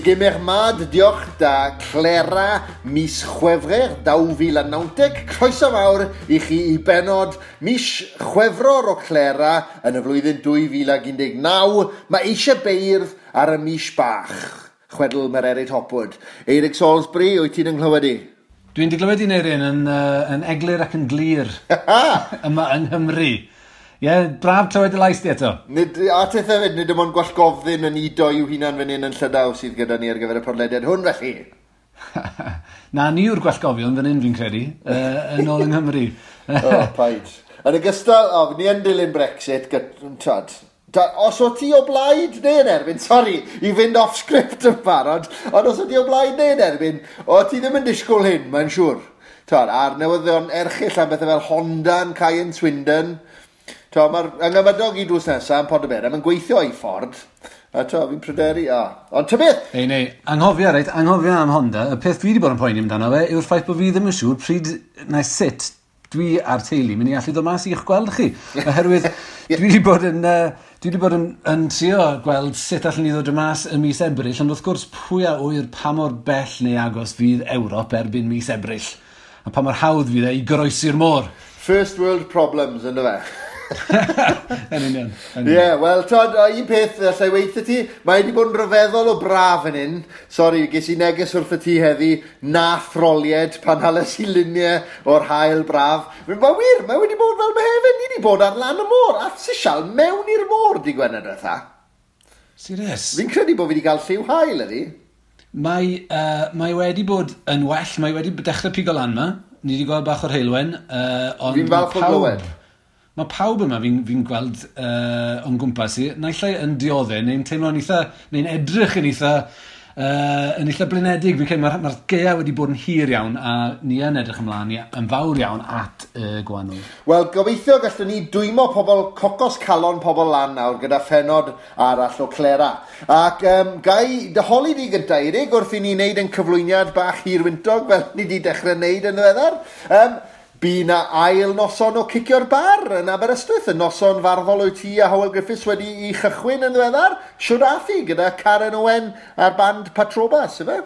Degemer mat deoc'h da Clera mis Chwefrer 2019. Croeso mawr i chi i benod mis Chwefror o Clera yn y flwyddyn 2019. Mae eisiau beirdd ar y mis bach. Chwedl Mererid Hopwood. Eirig Salisbury, wyt ti'n ynghlywed i? Dwi'n dy glywed i'n Eirin yn eglur ac yn glir yma yng Nghymru. Ie, yeah, braf clywed dy lais di eto. Nid, a teth hefyd, nid dim ond gwallgofddyn yn udo i'w hunan fan hyn yn Llydaw sydd gyda ni ar gyfer y podlediad hwn felly. Na, ni yw'r gwallgofion fan hyn fi'n credu, yn ôl yng Nghymru. O, paid. Yn ogystal, o, ni yn dilyn Brexit, tad, os o ti o blaid neu yn erbyn, sori, i fynd off script yn barod, ond os o ti o blaid neu yn erbyn, o ti ddim yn disgwyl hyn, mae'n siŵr. Tad, a'r newyddion erchyll am bethau fel Honda yn cau yn Swindon. Mae'r ynghyfadog i drws nesaf yn Pontyberem yn gweithio i ffordd. A to, fi'n pryderu, a. Ond ta beth? Ei, nei, anghofio, reit, anghofio am Honda. Y peth dwi wedi bod yn poeni amdano fe yw'r ffaith bod fi ddim yn siŵr pryd na sut dwi a'r teulu mynd i allu ddod mas i'ch gweld chi. Oherwydd dwi wedi bod yn, dwi wedi bod yn trio gweld sut allwn ni ddod mas ym mis Ebrill, ond wrth gwrs pwy a ŵyr pa mor bell neu agos fydd Ewrop erbyn mis Ebrill. A pa mor hawdd fydd e i goroesi'r môr. First world problems, ynddo fe? Yn union. Ie, wel, tod, un peth allai weithio ti, mae wedi bod yn rhyfeddol o braf yn hyn. Sori, ges i neges wrth y ti heddi, na throlied pan hales i luniau o'r haul braf. Mae wir, mae wedi bod fel Mehefin, ni wedi bod ar lan y môr, a sisial mewn i'r môr di Gwener diwetha. Serious? Fi'n credu bod fi wedi cael lliw haul ydi. Mae wedi bod yn well, mae wedi dechrau pigo lan ma. Ni wedi gweld bach o'r heulwen. Ond fi'n falch o glywed. Mae pawb yma fi'n gweld o'n gwmpas i, naill ai yn dioddef, neu'n teimlo'n eitha, neu'n edrych yn eitha, yn eitha blinedig. Fi'n credu mae'r gaeaf wedi bod yn hir iawn, a ni yn edrych ymlaen yn fawr iawn at y gwanwyn. Wel, gobeithio gallwn ni dwymo pobl, cocos calon pobl lan nawr gyda phenod arall o Clera. Ac gai dy holi di gyntaf, Eirig, wrth i ni wneud yn cyflwyniad bach hirwyntog fel ni wedi dechrau wneud yn ddiweddar. Bu na ail noson o Cicio'r Bar yn Aberystwyth, y noson farddol o'i ti a Hywel Griffiths wedi i chychwyn yn ddiweddar. Siwr ath hi gyda Karen Owen a'r band Patrobas, ife?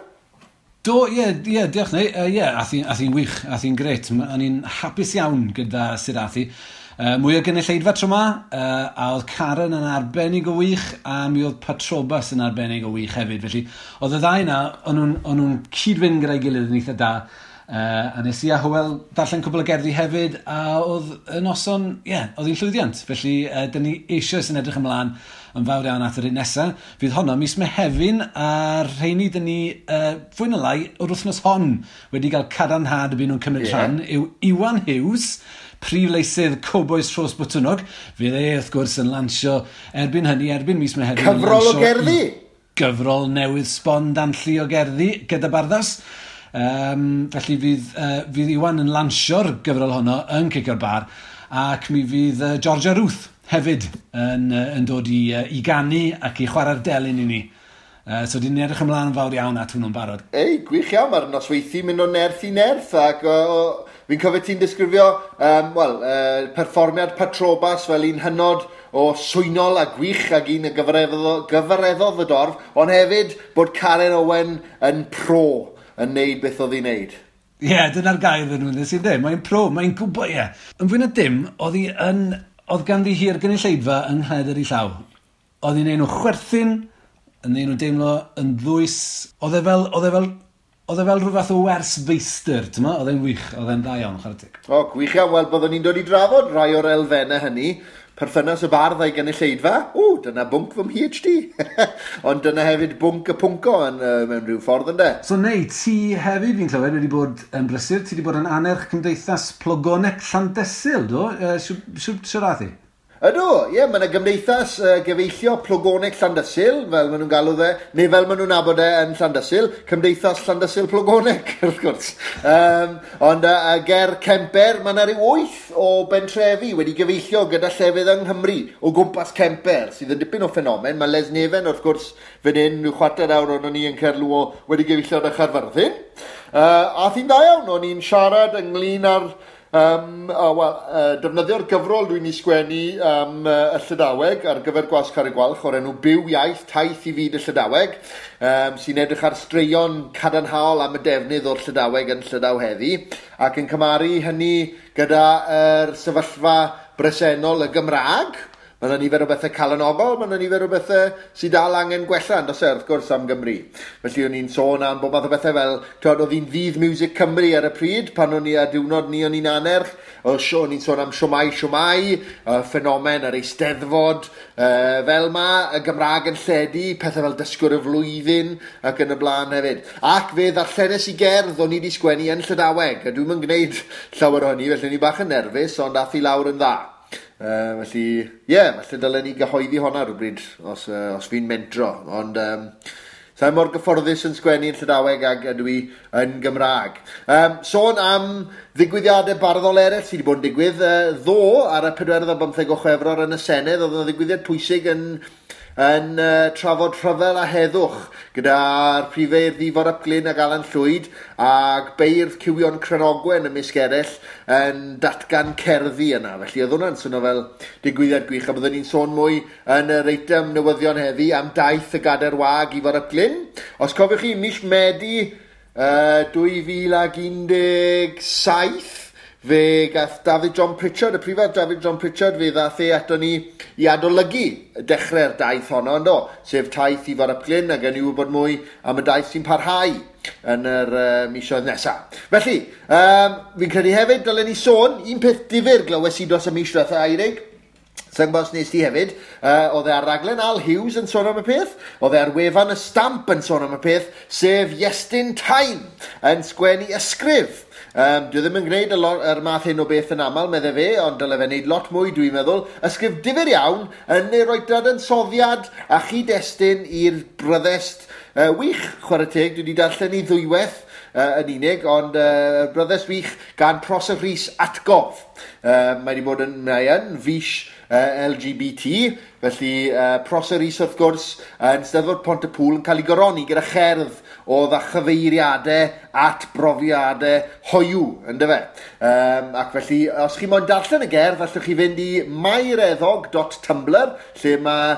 Do, ie, diolch neu. Ie, ath hi'n wych, ath hi'n grêt. O'n i'n hapus iawn gyda sut ath hi. Mwy o gynulleidfa tro 'ma, a oedd Karen yn arbennig o wych, a mi oedd Patrobas yn arbennig o wych hefyd. Felly, oedd y ddau 'na, o'n nhw'n cyd-fynd gyda'i gilydd yn eitha da. A nes i a Hywel darllen cwbl o gerddi hefyd, a oedd y noson, ie, oedd hi'n llwyddiant. Felly, dyn ni eisoes yn edrych ymlaen yn fawr iawn at yr un nesaf. Fydd honno mis Mehefin, a'r rheini dyn ni, fwy na lai, o'r wythnos hon wedi cael cadarnhad y byd nhw'n cymryd rhan, yw Iwan Hughes, prif leisydd Cowbois Rhos Botwnnog. Fydd e, wrth gwrs, yn lansio erbyn hynny, erbyn mis Mehefin. Cyfrol o gerddi! Gyfrol newydd sbon danlli o gerddi gyda Barddas. Felly fydd Iwan yn lansio'r gyfrol honno yn Cicio'r Bar, ac mi fydd Georgia Ruth hefyd yn dod i ganu ac i chwarae'r delyn i ni. So dyn ni'n edrych ymlaen yn fawr iawn at hwnnw'n barod. Ei, gwych iawn, mae'r nosweithi mynd o nerth i nerth, ac fi'n cofio ti'n disgrifio perfformiad Patrobas fel un hynod o swynol a gwych ac un y gyfareddodd y dorf, ond hefyd bod Karen Owen yn pro yn neud beth oedd hi'n neud. Ie, dyna'r gair yn nhw'n sy'n dweud. Mae'n pro, mae'n gwybod, ie. Yn fwy na dim, oedd ganddi hi'r gynulleidfa yng nghledr ei llaw. Oedd hi'n neud nhw chwerthin, yn neud nhw deimlo yn ddwys. Oedd e fel rhyw fath o wers feistr, ti'n ma? Oedd e'n wych, oedd e'n dda iawn, chwarae teg. O, gwych iawn. Wel, byddwn ni'n dod i drafod rhai o'r elfennau hynny. Perthynas y bardd a'i gynulleidfa. O, dyna bwnc fy mPhD. Ond dyna hefyd bwnc y pwnco yn, mewn rhyw ffordd, ynde? So, nei, ti hefyd, fi'n clywed, wedi bod yn brysur. Ti wedi bod yn annerch Cymdeithas Plogoneg Llandysul, do? Siwr ath hi? Ydw, ie, mae yna gymdeithas gyfeillio Plogoneg Llandysul, fel maen nhw'n galw fe, neu fel maen nhw'n nabod e yn Llandysul, Cymdeithas Llandysul Plogoneg, wrth gwrs. Ond ger Kemper, mae yna rhyw 8 o bentrefi wedi gyfeillio gyda llefydd yng Nghymru o gwmpas Kemper, sydd yn dipyn o ffenomen. Mae Lesneven, wrth gwrs, fan hyn, rhyw chwarter awr o'n ni yn Caerluo wedi gyfeillio â Chaerfyrddin. A thi'n dda iawn, o'n i'n siarad ynglyn â'r Wel, defnyddio'r gyfrol dwi'n ei sgwennu am y Llydaweg ar gyfer Gwasg Carreg Gwalch o'r enw Byw Iaith, Taith i Fyd y Llydaweg, sy'n edrych ar straeon cadarnhaol am y defnydd o'r Llydaweg yn Llydaw heddi, ac yn cymharu hynny gyda'r sefyllfa bresennol y Gymraeg. Mae yna nifer o bethau calonogol, mae yna nifer o bethau sydd dal angen gwella, yn does e, wrth gwrs, am Gymru. Felly o'n i'n sôn am bob math o bethau fel, twod, oedd hi'n ddydd Miwsig Cymru ar y pryd, pan o'n i a diwrnod ni o'n i'n anerch, oedd o'n i'n sôn am Shwmae Shwmae, ffenomen yr Eisteddfod, fel ma, y Gymraeg yn lledu, pethau fel Dysgwr y Flwyddyn, ac yn y blaen hefyd. Ac fe ddarllenes i gerdd o'n i wedi sgwennu yn Llydaweg, a dwi'm yn gwneud llawer o hynny, felly o'n i bach yn nerfus, ond ath i lawr yn dda. Felly, ie, yeah, falle dylen ni gyhoeddi honna rhywbryd os fi'n mentro. Ond sa'n mor gyfforddus yn sgwennu yn Llydaweg ag ydw i yn Gymraeg. Sôn am ddigwyddiadau barddol eraill sydd wedi bod yn digwydd, ddoe ar y 24 o Chwefror yn y Senedd, oedd yna ddigwyddiad pwysig yn trafod rhyfel a heddwch gyda'r prifeirdd Ifor ap Glyn ac Alan Llwyd ac beirdd Cywion Cranogwen ymysg eraill yn datgan cerddi yna. Felly oedd hwnna'n swnio fel digwyddiad gwych, a byddwn ni'n sôn mwy yn yr eitem newyddion heddi am daith y Gadair Wag Ifor ap Glyn. Os cofiwch chi, mis Medi 2017, fe gath David John Pritchard, y prifardd David John Pritchard, fe ddath e ato ni i adolygu dechrau'r daith honno, yndo? Sef taith Ifor ap Glyn, a gen i wybod mwy am y daith sy'n parhau yn yr misoedd nesaf. Felly, fi'n credu hefyd dylen ni sôn, un peth difyr glywes i dros y mis diwetha, Eirig, Sa'n gwybod os nes ti hefyd, oedd e ar raglen Al Hughes yn sôn am y peth, oedd e ar wefan y Stamp yn sôn am y peth, sef Iestyn Tyne yn sgwennu ysgrif. Dwi ddim yn gwneud yr math hyn o beth yn aml, medde fe, ond dyle fe wneud lot mwy, dwi'n meddwl. Ysgrif difyr iawn yn ei roi dadansoddiad a chyd-destun i'r bryddest wych, chwarae teg, dwi wedi darllen i ddwywaith yn unig, ond bryddest wych gan Prosser Rhys Atgof. Mae wedi bod yn, mae yn fis LGBT, felly Prosser Rhys wrth gwrs yn Steddfod Pont-y-pŵl yn cael ei goroni gyda cherdd oedd â chyfeiriadau at brofiadau hoiw, yndyfe. Ac felly, os chi moyn darllen y gerdd, allwch chi fynd i maireddog.tumblr, lle mae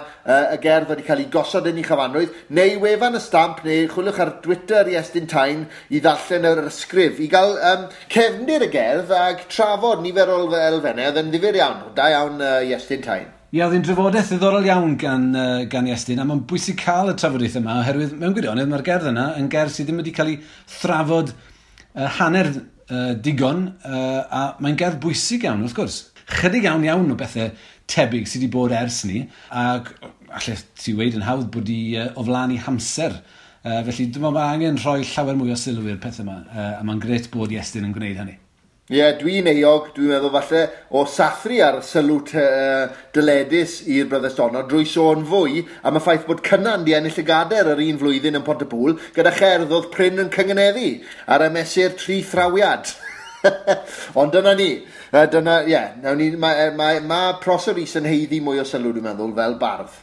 y gerdd wedi cael ei gosod yn ei chyfanrwydd, neu wefan y Stamp, neu chwiliwch ar Twitter Iestyn Tyne i ddarllen yr ysgrif, i gael cefndir y gerdd ac trafod nifer o elfennau, oedd yn ddifyr iawn. Da iawn, Iestyn Tyne. Ie, oedd hi'n drafodaeth ddiddorol iawn gan Iestyn, a mae'n bwysig cael y trafodaeth yma, oherwydd mewn gwirionedd mae'r gerdd yna yn gerdd sydd ddim wedi cael ei thrafod hanner digon, a mae'n gerdd bwysig iawn, wrth gwrs. Chydig iawn iawn o bethau tebyg sydd wedi bod ers ni, ac allai ti weud yn hawdd bod i o flaen i hamser. Felly dwi'n meddwl mae angen rhoi llawer mwy o sylw i'r pethau yma, a mae'n grêt bod Iestyn yn gwneud hynny. Ie, yeah, dwi'n euog, dwi'n meddwl falle, o sathru ar sylw dyledus i'r bryddest honno drwy sôn fwy am y ffaith bod Cynan di ennill y gader yr un flwyddyn yn Pontypŵl gyda cherdd oedd prin yn cyngeneddu ar y mesur tri thrawiad. Ond dyna ni. Dyna, ie, yeah, ni, mae ma, ma Prosser Rhys yn haeddu mwy o sylw, dwi'n meddwl, fel bardd,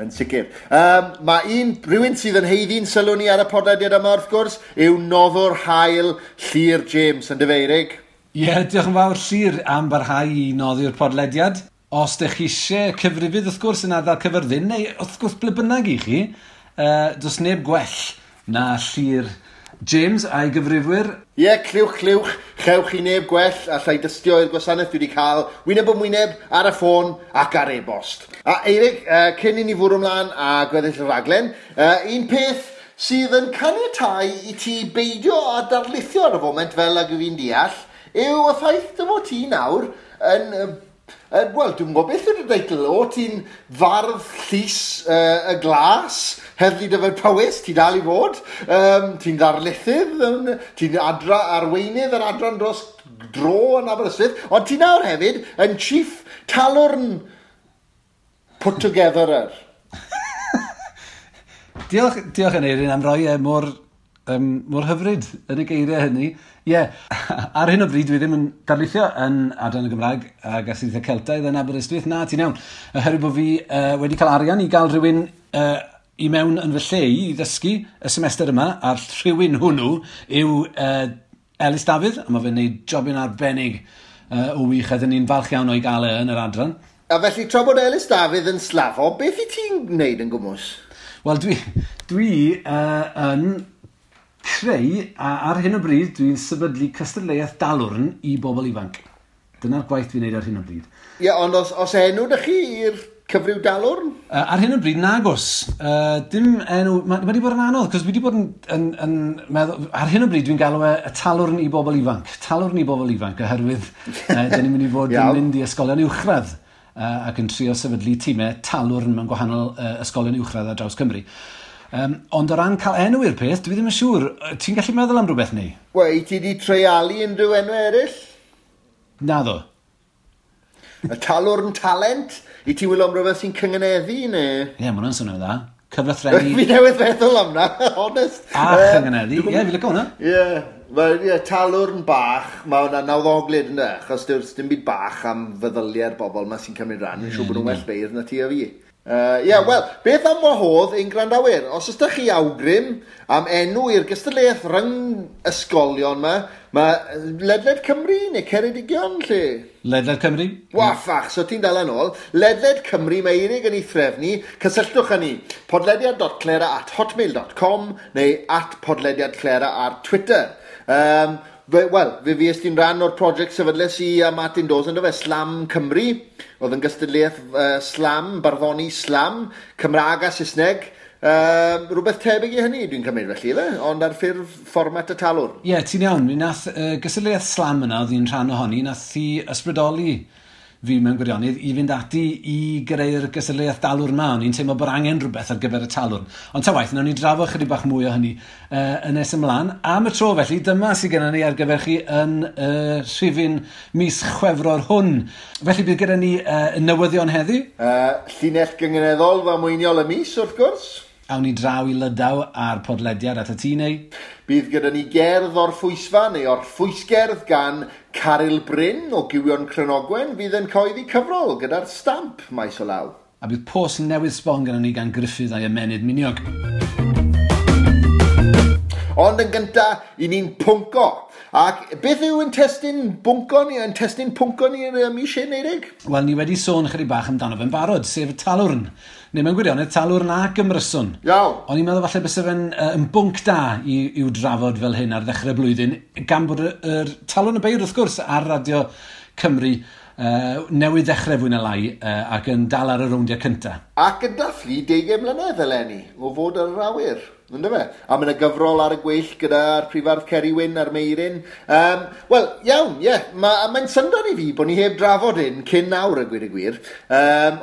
yn sicr. Mae un, rhywun sydd yn haeddu'n sylw ni ar y podlediad yma, wrth gwrs, yw noddwr hael Llyr James, yn dyfeirig. Ie, yeah, diolch yn fawr Llyr am barhau i noddi'r podlediad. Os ydych chi eisiau cyfrifydd wrth gwrs yn ardal Cyfyrddin, neu wrth gwrs ble bynnag i chi, does neb gwell na Llyr James a'i gyfrifwyr. Ie, yeah, clywch, clywch, chewch chi neb gwell allai dystio i'r gwasanaeth dwi wedi cael wyneb yn wyneb, ar y ffôn ac ar e-bost. A Eirig, cyn i ni fwrw ymlaen a gweddill y raglen, un peth sydd yn caniatáu i ti beidio â darlithio ar y foment fel ag y fi'n deall, yw y ffaith dy fod ti nawr yn, wel, dwi'n gwybod beth yw'r deitl, o ti'n fardd llys y glas, Heddlu Dyfed Powys, ti dal i fod, ti'n ddarlithydd, ti'n adra arweinydd yr adran dros dro yn Aberystwyth, ond ti nawr hefyd yn Chief Talwrn Put Togetherer. Diolch, diolch Aneirin am roi e mor hyfryd yn y geiriau hynny. Ie, yeah, ar hyn o bryd dwi ddim yn darlithio yn Adran y Gymraeg ac Astudiaethau Celtaidd yn Aberystwyth. Na, ti'n iawn. Oherwydd bod fi wedi cael arian i gael rhywun i mewn yn fy lle i ddysgu y semester yma, a'r rhywun hwnnw yw Elis Dafydd, a mae fe'n gwneud jobyn arbennig. o wych, a dyn ni'n falch iawn o'i gael e yn yr adran. A felly, tra bod Elis Dafydd yn slafo, beth i ti'n gwneud yn gwmws? Wel, dwi yn creu, a ar hyn o bryd, dwi'n sefydlu cystadleuaeth dalwrn i bobl ifanc. Dyna'r gwaith dwi'n neud ar hyn o bryd. Ie, yeah, ond os enw 'da chi i'r cyfryw dalwrn? Ar hyn o bryd, nagos. Dim enw. Mae wedi bod yn anodd, cos dwi wedi bod yn meddwl. Ar hyn o bryd, dwi'n galw e y talwrn i bobl ifanc. Talwrn i bobl ifanc, oherwydd dyn ni'n mynd i fod yn mynd i ysgolion uwchradd ac yn trio sefydlu tîmau talwrn mewn gwahanol ysgolion uwchradd ar draws Cymru. Ond o ran cael enw i'r peth, dwi ddim yn siŵr. Ti'n gallu meddwl am rhywbeth neu? Wel, i ti di treialu unrhyw enw eraill? Naddo. Y talwrn talent? I ti wylio am rhywbeth sy'n cyngeneddu, neu? Ie, yeah, mae hwnna'n swnio'n dda. Cyflythrennu. Fi newydd feddwl am na, honest. A chyngeneddu, ie, fi licio hwnna. Ie, yeah, talwrn bach, mae hwnna'n nawddoglyd yna, achos dim byd bach am feddyliau'r bobl ma sy'n cymryd rhan, yn siŵr bod nhw'n well beirdd na ti a fi. Ie, yeah, wel, beth am wahodd ein gwrandawyr? Os ydych chi awgrym am enw i'r gystadleuaeth rhyng ysgolion yma, mae ledled Cymru neu Ceredigion, lle? Ledled Cymru. Waffach, so ti'n dal yn ôl. Ledled Cymru, mae Eirig yn ei threfnu. Cysylltwch â ni, podlediad.clera@hotmail.com neu @podlediadclera ar Twitter. Wel, fe fues ti'n rhan o'r prosiect sefydles i a Martin Dawes, ynddo fe, Slam Cymru. Oedd yn gystadleuaeth slam, barddoni slam, Cymraeg a Saesneg. Rhywbeth tebyg i hynny, dwi'n cymryd felly, efe? Ond ar ffurf fformat y talwrn. Ie, yeah, ti'n iawn. Mi nath gystadleuaeth slam yna, oedd hi'n rhan ohoni, nath hi ysbrydoli fi mewn gwirionedd i fynd ati i greu'r gystadleuaeth dalwrn ma. O'n i'n teimlo bod angen rhywbeth ar gyfer y talwrn. Ond ta waeth, nawn ni drafod chydig bach mwy o hynny yn nes ymlaen. Am y tro felly, dyma sydd gennym ni ar gyfer chi yn rhifyn mis Chwefror hwn. Felly bydd gyda ni newyddion heddi. Llinell gynganeddol ddamweiniol y mis, wrth gwrs. Awn ni draw i Lydaw ar podlediad at y tŷ neu. Bydd gyda ni gerdd o'r ffwysfa neu o'r ffwysgerdd gan Caryl Bryn o Gywion Cranogwen fydd yn cyhoeddi cyfrol gyda'r stamp maes o law. A bydd post newydd sbon gyda ni gan Gruffydd a'i ymennydd miniog. Ond yn gynta, i ni'n pwnco. Ac beth yw yn testun bwnco ni, yn testun pwnco ni yn y mis hyn, Eirig? Wel, ni wedi sôn chydig bach amdano fe'n barod, sef y talwrn. Neu mewn gwirionedd, talwrn ac ymryson. Iawn. O'n i'n meddwl falle byse fe'n yn bwnc da i'w drafod fel hyn ar ddechrau blwyddyn, gan bod yr Talwrn y Beirdd, wrth gwrs, ar Radio Cymru newydd ddechrau fwy na lai ac yn dal ar y rowndiau cyntaf. Ac yn dathlu 20 mlynedd eleni o fod ar yr awyr, yndyfe? A mae yna gyfrol ar y gweill gyda'r prifardd Ceri Wyn a'r Meirin. Wel, iawn, ie, yeah, mae'n syndod i fi bod ni heb drafod hyn cyn nawr, y gwir y gwir.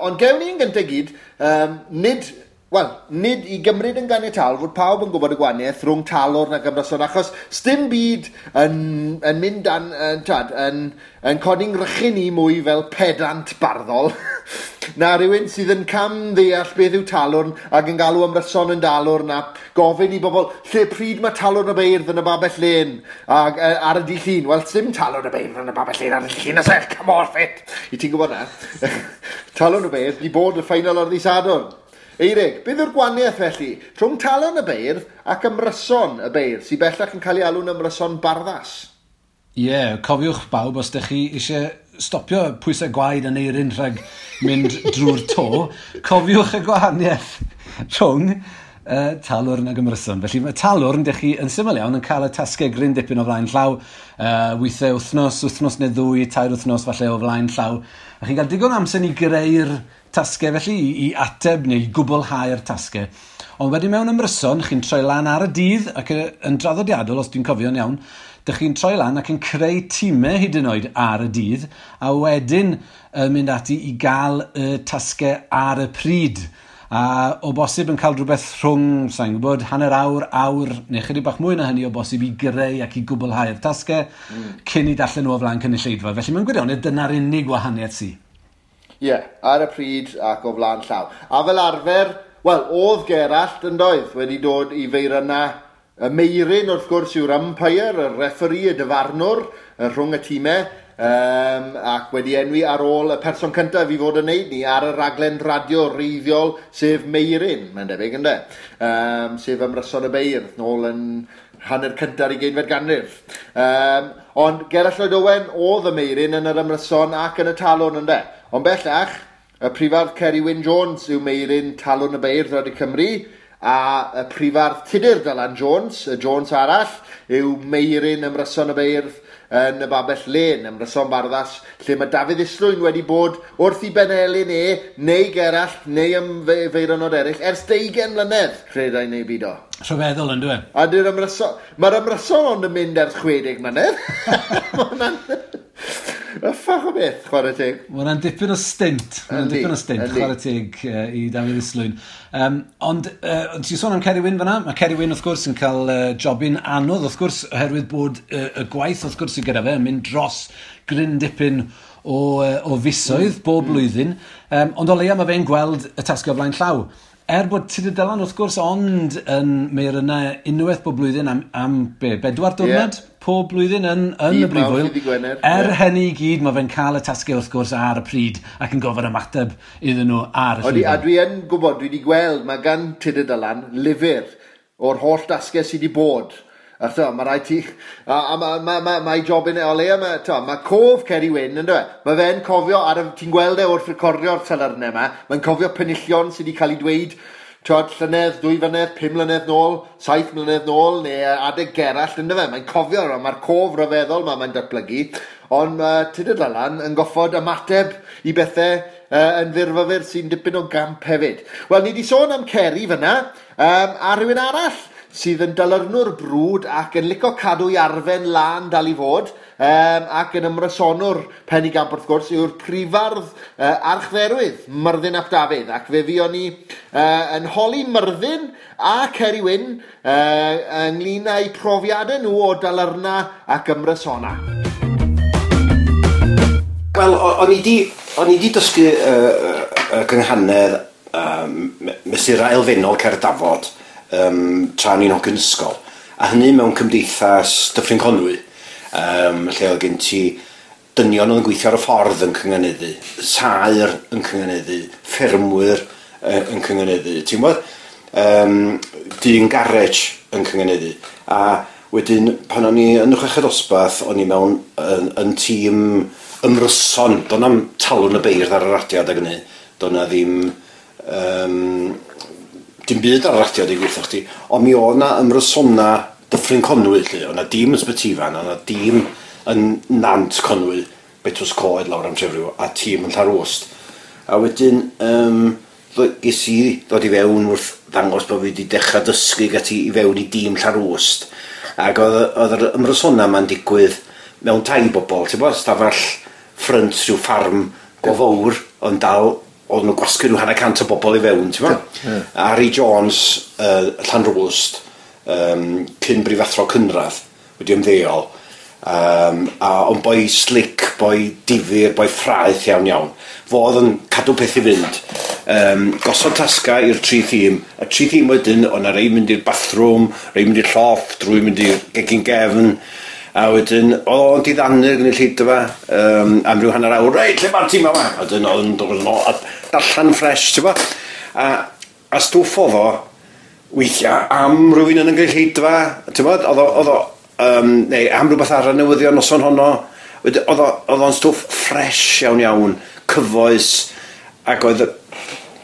Ond gewn ni yn gyntaf gyd, nid i gymryd yn ganiataol fod pawb yn gwybod y gwahaniaeth rhwng talwrn ac ymryson, achos sdim byd yn mynd dan, yn codi'n ngrychu ni mwy fel pedant barddol na rhywun sydd yn cam ddeall beth yw talwrn ac yn galw ymryson yn dalwrn a gofyn i bobl lle pryd mae talwrn y beirdd yn y babell lên ac ar y dydd Llun. Wel, sdim talwrn y beirdd yn y babell lên ar y dydd Llun, oes e? Come off it! I ti'n gwybod na? Talwrn y beirdd di bod y ffeinal ar ddydd Sadwrn. Eirig, beth yw'r gwahaniaeth felly rhwng talwrn y beirdd ac ymryson y beirdd, sydd bellach yn cael ei alw'n ymryson barddas? Ie, yeah, cofiwch bawb, os ydych chi eisiau stopio pwysau gwaed yn eirin rhag mynd drwy'r to, cofiwch y gwahaniaeth rhwng talwrn ac ymryson. Felly mae talwrn, dych chi yn syml iawn, yn cael y tasgau gryn dipyn o flaen llaw, weithiau wythnos, wythnos neu ddwy, 3 wythnos falle o flaen llaw. A chi'n cael digon amser i greu'r tasgau felly, i ateb neu i gwblhau'r tasgau. Ond wedyn mewn ymryson, chi'n troi lan ar y dydd ac yn draddodiadol, os dwi'n cofio'n iawn, dych chi'n troi lan ac yn creu tîmau hyd yn oed ar y dydd, a wedyn mynd ati i gael y tasgau ar y pryd. A o bosib yn cael rhywbeth rhwng, sa'n gwybod, hanner awr, awr, neu chydig bach mwy na hynny o bosib i greu ac i gwblhau'r tasgau cyn i darllen nhw o flaen cynulleidfa. Felly mewn gwirionedd, dyna'r unig wahaniaeth sy. Ie, yeah, ar y pryd ac o flaen llaw. A fel arfer, wel, oedd Gerallt yn doedd wedi dod i feirynna y Meirin, wrth gwrs, yw'r umpire, y referee, y dyfarnwr, rhwng y tîmau, ac wedi enwi ar ôl y person cyntaf i fod yn neud ni ar y raglen radio reiddiol, sef Meirin, mae'n debyg, ynde? Sef ymryson y beirdd, nôl yn Hanner cynta'r 20fed ganrif. Ond Gerallt Lloyd Owen oedd y Meuryn yn yr ymryson ac yn y Talwrn, ynde. Ond bellach, y prifardd Ceri Wyn Jones yw Meuryn Talwrn y Beirdd Radio Cymru, a y prifardd Tudur Dylan Jones, y Jones arall, yw Meuryn Ymryson y Beirdd yn y Babell Lên, Ymryson Barddas, lle mae Dafydd Islwyn wedi bod wrth i benelin e, neu Gerallt, neu am feironod eraill, ers 20 mlynedd, credai neu beidio. Rhyfeddol yn dwi. A dy'r ymryson... Mae'r ymryson ond yn mynd ers 60 mlynedd. Mae hwnna'n uffach o beth, chwarae teg. Mae hwnna'n dipyn o stint. Mae hwnna'n dipyn o stint, chwarae teg i Dafydd Islwyn. Ond ti'n sôn am Ceri Wyn fan'na? Mae Ceri Wyn, wrth gwrs, yn cael jobyn anodd, wrth gwrs, oherwydd bod y gwaith, wrth gwrs, sydd gyda fe yn mynd dros gryn dipyn o fisoedd bob blwyddyn. Ond o leia mae fe'n gweld y tasgau o flaen llaw. Er bod Tudur Dylan, wrth gwrs, ond yn meirynna unwaith bob blwyddyn am be, 4 diwrnod pob blwyddyn yn y brifwyl. Er hynny i gyd, mae fe'n cael y tasgau, wrth gwrs, ar y pryd ac yn gofyn ymateb iddyn nhw ar y llwyfan. A dwi yn gwybod, dwi wedi gweld, mae gan Tudur Dylan lyfr o'r holl tasgau sydd wedi bod. A to, mae rhaid ti... A mae job yn o leia, mae cof Ceri Wyn, ynddo fe? Mae fe'n cofio, ti'n gweld e wrth recordio'r talyrnau yma, mae'n cofio penillion sydd wedi cael ei dweud, twod, llynedd, 2 flynedd, 5 mlynedd nôl, 7 mlynedd nôl, neu adeg Gerallt, ynddo fe? Mae'n cofio, mae'r cof rhyfeddol yma mae'n datblygu, ond mae Tudur Dylan yn goffod ymateb i bethau yn fyrfyfyr sy'n dipyn o gamp hefyd. Wel, ni wedi sôn am Ceri fyna, a rhywun arall sydd yn dalyrnwr brwd ac yn licio cadw i arfen lân dal i fod, ac yn ymrysonwr penigamp wrth gwrs, yw'r prifardd archdderwydd Myrddin ap Dafydd. Ac fe fuon ni yn holi Myrddin a Ceri Wyn ynglyn â'u profiadau nhw o dalyrna ac ymrysona. Wel, o'n i di dysgu y gynghanedd mesurau elfennol Cerdd Dafod tra o'n i'n hogyn ysgol, a hynny mewn cymdeithas Dyffryn Conwy, lle oedd gen ti dynion oedd yn gweithio ar y ffordd yn cynganeddu, saer yn cynganeddu, ffermwyr yn cynganeddu, ti'n gwybod, dyn garej yn cynganeddu. A wedyn pan o'n i yn y chweched dosbarth, o'n i mewn yn tîm ymryson, do'n na'm Talwrn y Beirdd ar y radio adeg hynny, do'n na ddim dim byd ar y radio i gweithio chdi, ond mi oedd na ymrysona Dyffryn Conwy, lle. Oedd na dîm yn Sbytyfan, oedd na dîm yn Nant Conwy, Betws Coed lawr am Trefriw, a tîm yn Llanrwst. A wedyn, ges i ddod i fewn wrth ddangos bod fi wedi dechrau dysgu gati i fewn i dîm Llanrwst. Ac oedd yr ymrysona ma'n digwydd mewn tai bobl, ti'n bod, stafell ffrynt rhyw ffarm go fawr, ond dal oedd nhw'n gwasgu rhyw 150 o bobl i fewn, ti'n bod? Harry Jones, Llanrwst, cyn brifathro cynradd, wedi ymddeol, ond boi slick, boi difyr, boi ffraeth iawn iawn. Fo oedd yn cadw peth i fynd. Gosod tasga i'r tri thîm. Y tri thîm wedyn, oedd 'na rei mynd i'r bathroom, rei mynd i'r llofft, rwy mynd i'r gegin gefn, a wedyn, oedd o'n diddanu'r gynulleidfa am ryw hanner awr, reit, lle mae'r tîm yma? A wedyn oedd yn dod yn ôl, a darllen ffres, ti'n bo? A stwff oedd o, weithiau, am rhywun yn y gynulleidfa, ti'n bo? Oedd o, neu am rhywbeth ar y newyddion noson honno. Wedyn, oedd o'n stwff ffres iawn iawn, cyfoes, ac oedd,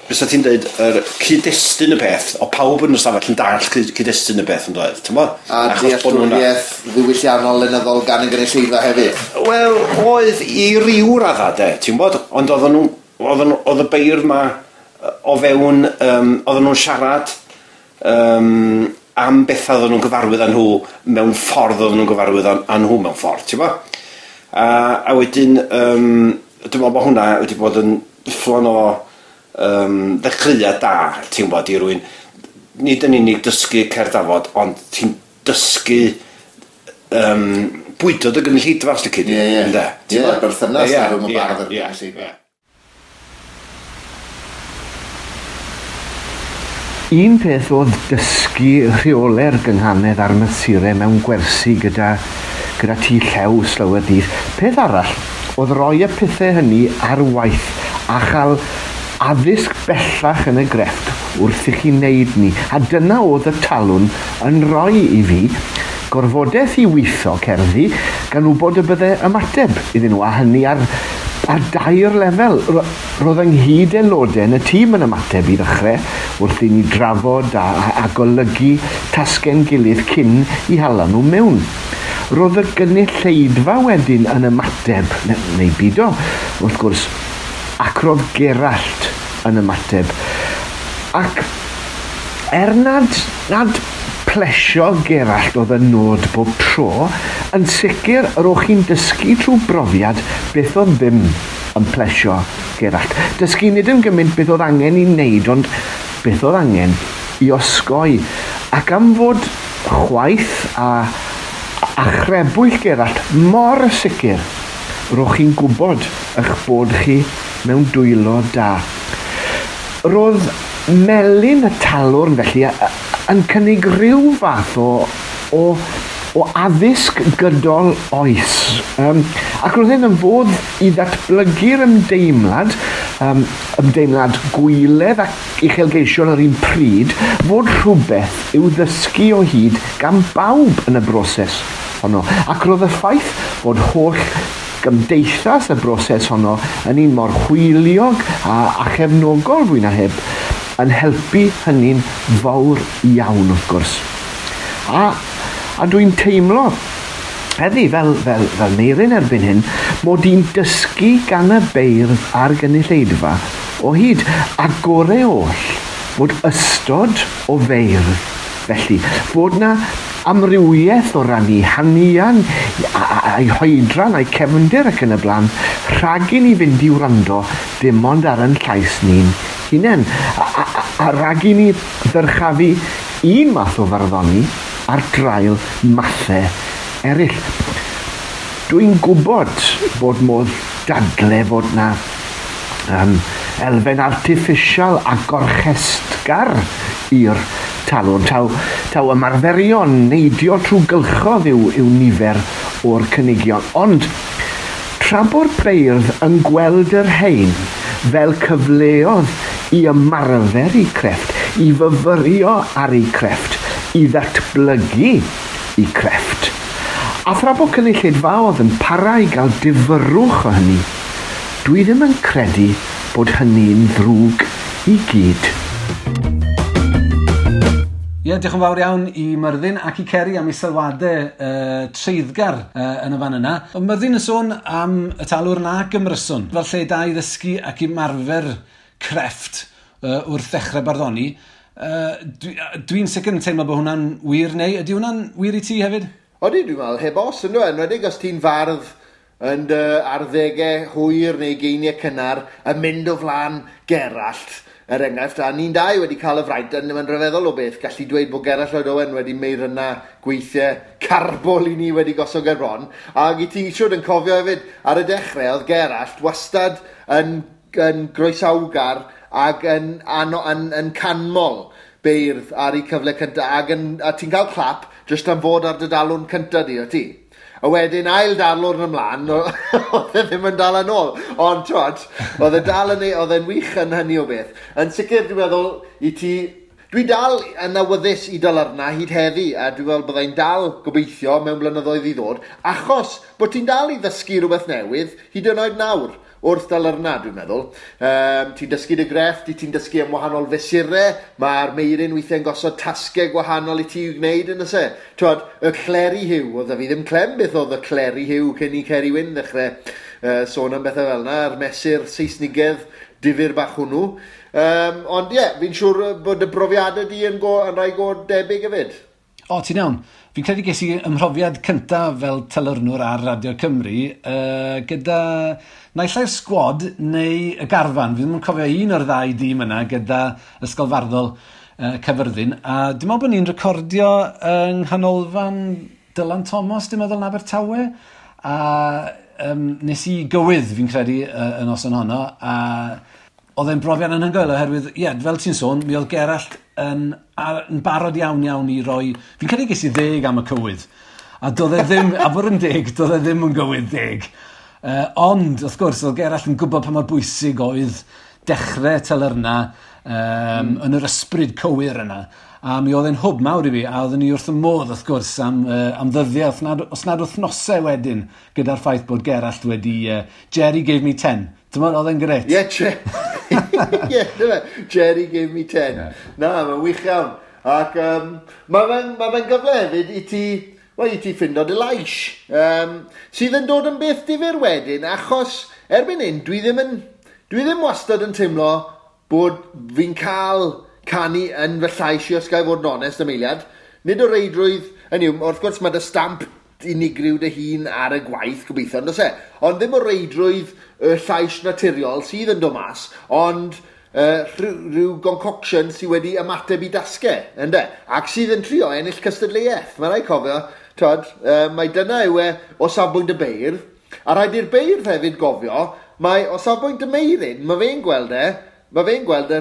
fysa ti'n dweud, yr cyd-destun y peth, o pawb yn y stafell yn dallt cyd-destun y peth yn dweud, ti'n bo? A dealltwriaeth ddiwylliannol lenyddol gan y gynulleidfa hefyd? Wel, oedd i ryw radda de, ti'n bod? Ond oedd y beirdd ma o fewn, oedden nhw'n siarad am bethau oedden nhw'n gyfarwydd â nhw mewn ffordd oedden nhw'n gyfarwydd â nhw mewn ffordd, ti'n bo? A wedyn, dwi'n meddwl bod hwnna wedi bod yn fflon o ddechreuad da, ti'n gwybod, i rywun, nid yn unig dysgu Cerdd Dafod, ond ti'n dysgu bwydo dy gynulleidfa, os lici di. Ie, ie. Berthynas rhwng y bardd a'r gynulleidfa. Un peth oedd dysgu rheolau'r gynghanedd a'r mesurau mewn gwersi gyda tŷ llew slawer dydd. Peth arall oedd rhoi y pethau hynny ar waith a chael addysg bellach yn y grefft wrth i chi wneud ni. A dyna oedd y Talwrn yn rhoi i fi. Gorfodaeth i weithio cerddi gan wybod y bydde ymateb iddyn nhw, a hynny ar, ar dair lefel. Roedd ynghyd aelodau yn y tîm yn ymateb i ddechrau wrth i ni drafod a, a, a golygu tasgau'n gilydd cyn i hala nhw mewn. Roedd y gynulleidfa wedyn yn ymateb, neu, neu bido, wrth gwrs, ac roedd Gerallt yn ymateb. Ac er nad, nad plesio Gerallt oedd y nod bob tro, yn sicr yr o'ch chi'n dysgu trwy brofiad beth oedd ddim yn plesio Gerallt. Dysgu nid yn gymaint beth oedd angen i wneud, ond beth oedd angen i osgoi. Ac am fod chwaith a, a chrebwyll Gerallt mor sicr, ro'ch chi'n gwybod eich bod chi mewn dwylo da. Roedd melyn y talwrn felly yn cynnig rhyw fath o, o, o addysg gydol oes. Um, ac roedd hyn yn fodd i ddatblygu'r ymdeimlad, um, ymdeimlad gwyledd ac uchelgeisiol yr un pryd, fod rhywbeth i'w ddysgu o hyd gan bawb yn y broses honno. Ac roedd y ffaith fod holl gymdeithas y broses honno yn un mor hwyliog a, a chefnogol fwy na heb yn helpu hynny'n fawr iawn wrth gwrs. A, a dwi'n teimlo heddi fel, fel, fel Meirin erbyn hyn, mod i'n dysgu gan y beirdd a'r gynulleidfa o hyd, a gore oll fod ystod o feirdd. Felly, fod na amrywiaeth o ran eu hanian, a'i hoedran, a'i cefndir ac yn y blaen, rhag i ni fynd i wrando dim ond ar yn llais ni'n hunain. A, a, a, a rhag i ni ddyrchafu un math o farddoni ar draul mathau eraill. Dwi'n gwybod bod modd dadle fod na um, elfen artiffisial a gorchestgar i'r talwrn. Taw, taw ymarferion neidio trwy gylchodd yw, yw nifer o'r cynigion. Ond tra bod beirdd yn gweld yr hein fel cyfleoedd i ymarfer eu crefft, i fyfyrio ar eu crefft, i ddatblygu eu crefft. A thra bod cynulleidfaoedd yn para i gael difyrrwch o hynny, dwi ddim yn credu bod hynny'n ddrwg i gyd. Ie, yeah, diolch yn fawr iawn i Myrddin ac i Ceri am ei sylwadau treiddgar yn y fan yna. Ond Myrddin yn sôn am y talwrn ac ymryson, fel lle da i ddysgu ac ymarfer crefft wrth ddechrau barddoni. Dwi'n dwi sicr yn teimlo bod hwnna'n wir neu ydy hwnna'n wir i ti hefyd? Odi, dwi'n meddwl, heb os, ynddo, enwedig os ti'n fardd yn dy arddegau hwyr neu geiniau cynnar yn mynd o flaen Gerallt, er enghraifft, a ni'n dau wedi cael y fraint, yn mae'n rhyfeddol o beth, gallu dweud bod Gerallt Lloyd Owen wedi meirynna gweithiau carbol i ni wedi gosod ger bron, ac i ti siwr yn cofio hefyd, ar y dechrau oedd Gerallt wastad yn, yn groesawgar ac yn, yn, yn, yn canmol beirdd ar eu cyfle cyntaf, ac yn, a ti'n cael clap jyst am fod ar dy dalwrn cyntaf di, o ti? A wedyn ail darlwrn ymlaen, oedd e ddim yn dal yn ôl. Ond, twod, oedd e dal yn, oedd e'n wych yn hynny o beth. Yn sicr, dwi'n meddwl, i ti... Dwi dal yn awyddus i dalyrna hyd heddi, a dwi'n meddwl byddai'n dal gobeithio mewn blynyddoedd i ddod, achos bod ti'n dal i ddysgu rhywbeth newydd hyd yn oed nawr wrth dalyrna, dwi'n meddwl. Um, ti'n dysgu dy grefft, ti'n dysgu am wahanol fesurau, mae'r meirin weithiau'n gosod tasgau gwahanol i ti i'w gwneud yn y se. Twod, y Cleri Huw, oedd fi ddim clem beth oedd y Cleri Huw cyn i Ceri Wyn ddechrau uh, sôn am bethau fel yna, a'r mesur Saesnigedd difyr bach hwnnw. Um, ond ie, yeah, fi'n siŵr bod y brofiadau di yn, go, yn rhai go debyg hefyd. O, ti'n iawn. Fi'n credu ges i ymhrofiad cyntaf fel telyrnwr ar Radio Cymru uh, gyda naill ai'r sgwad neu y garfan. Fi ddim yn cofio un o'r ddau dîm yna gyda Ysgol Farddol uh, Caerfyrddin. A dwi'n meddwl bod ni'n recordio yng Nghanolfan Dylan Thomas, dwi'n meddwl, yn Abertawe. A um, nes i gywydd, fi'n credu, uh, y noson honno. A oedd e'n brofiad anhygoel oherwydd, ie, yeah, fel ti'n sôn, mi oedd Gerallt yn, ar, yn barod iawn iawn i roi... Fi'n credu ges i ddeg am y cywydd. A doedd e ddim, a bod yn deg, doedd e ddim yn gywydd deg. Uh, ond, wrth gwrs, oedd Gerallt yn gwybod pa mor bwysig oedd dechrau telyrna um, mm. yn yr ysbryd cywir yna. A mi oedd e'n hwb mawr i fi, a oedden ni wrth y modd, wrth gwrs, am ddyddiau, os nad wythnosau wedyn, gyda'r ffaith bod Gerallt wedi... Jerry gave me 10. Ti'n meddwl, oedd e'n grêt? Ie, yeah, Jerry gave me 10. Yeah. Na, mae'n wych iawn. Ac mae fe'n ma fe gyfle hefyd i ti, well, i ti ffindo dy lais. Sydd yn dod yn beth difyr wedyn, achos erbyn hyn, dwi ddim wastad yn teimlo bod fi'n cael canu yn fy llais i, os ga i fod yn onest am eiliad. Nid o reidrwydd, hynny yw, wrth gwrs mae dy stamp unigryw dy hun ar y gwaith, gobeithio, ond oes e? Ond ddim o reidrwydd y llais naturiol sydd yn dod mas, ond rhyw concoction sydd wedi ymateb i dasgau, ynde? Ac sydd yn trio ennill cystadleuaeth. Mae rhaid cofio, twod, mae dyna yw e o safbwynt y beirdd, a rhaid i'r beirdd hefyd gofio, mae o safbwynt y Meuryn, mae fe'n gweld y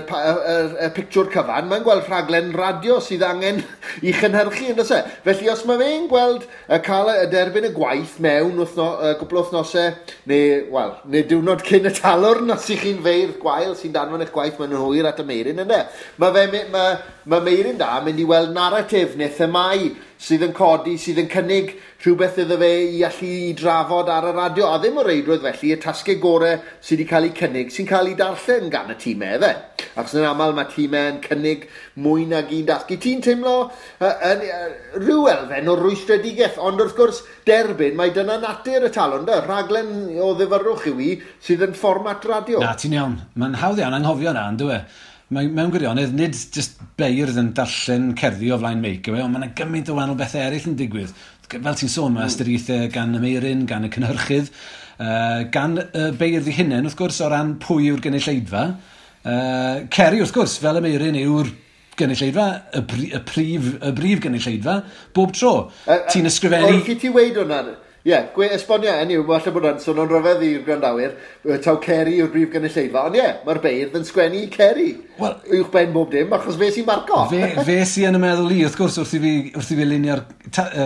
pictiwr cyfan, mae'n gweld rhaglen radio sydd angen i chynhyrchu, yn e? Felly os mae fe'n gweld cael y derbyn y gwaith mewn gwpl o wythnosau, neu, wel, neu diwrnod cyn y talwrn, os ych chi'n feirdd gwael sy'n danfon eich gwaith mewn yn hwyr at y Meuryn, ynddo? Mae Meuryn da mynd i weld naratif neu themau sydd yn codi, sydd yn cynnig rhywbeth iddo fe i allu i drafod ar y radio, a ddim o reidrwydd felly y tasgau gorau sydd wedi cael eu cynnig, sy'n cael eu darllen gan y tîmau, efe. Achos yn aml mae tîmau yn cynnig mwy nag un dasg. I ti'n teimlo rhyw elfen o rwystredigaeth, ond wrth gwrs derbyn, mae dyna natur y talwrn, da, rhaglen o ddifyrrwch yw i sydd yn fformat radio. Na, ti'n iawn. Mae'n hawdd iawn anghofio na, yn dyw e? Mae, mewn gwirionedd, nid just beirdd yn darllen cerddi o flaen meic, yw e, ond mae yna gymaint o wahanol bethau eraill yn digwydd. Fel ti'n sôn, mae ystyriaethau gan y Meuryn, gan y cynhyrchydd, gan y beirdd eu hunain, wrth gwrs, o ran pwy yw'r gynulleidfa. Ceri, wrth gwrs, fel y Meuryn yw'r gynulleidfa, y brif gynulleidfa, bob tro. Ti'n ysgrifennu. Wrth i ti weud hwnna, ie, yeah, esbonio, hynny yw, falle bod hwnna'n swnio'n rhyfedd i'r gwrandawyr, taw Ceri yw'r brif gynulleidfa, ond ie, yeah, mae'r beirdd yn sgwennu i Ceri. Wel, uwch ben bob dim, achos fe sy'n marco. Fe sy yn y meddwl i, wrth gwrs, wrth i fi lunio'r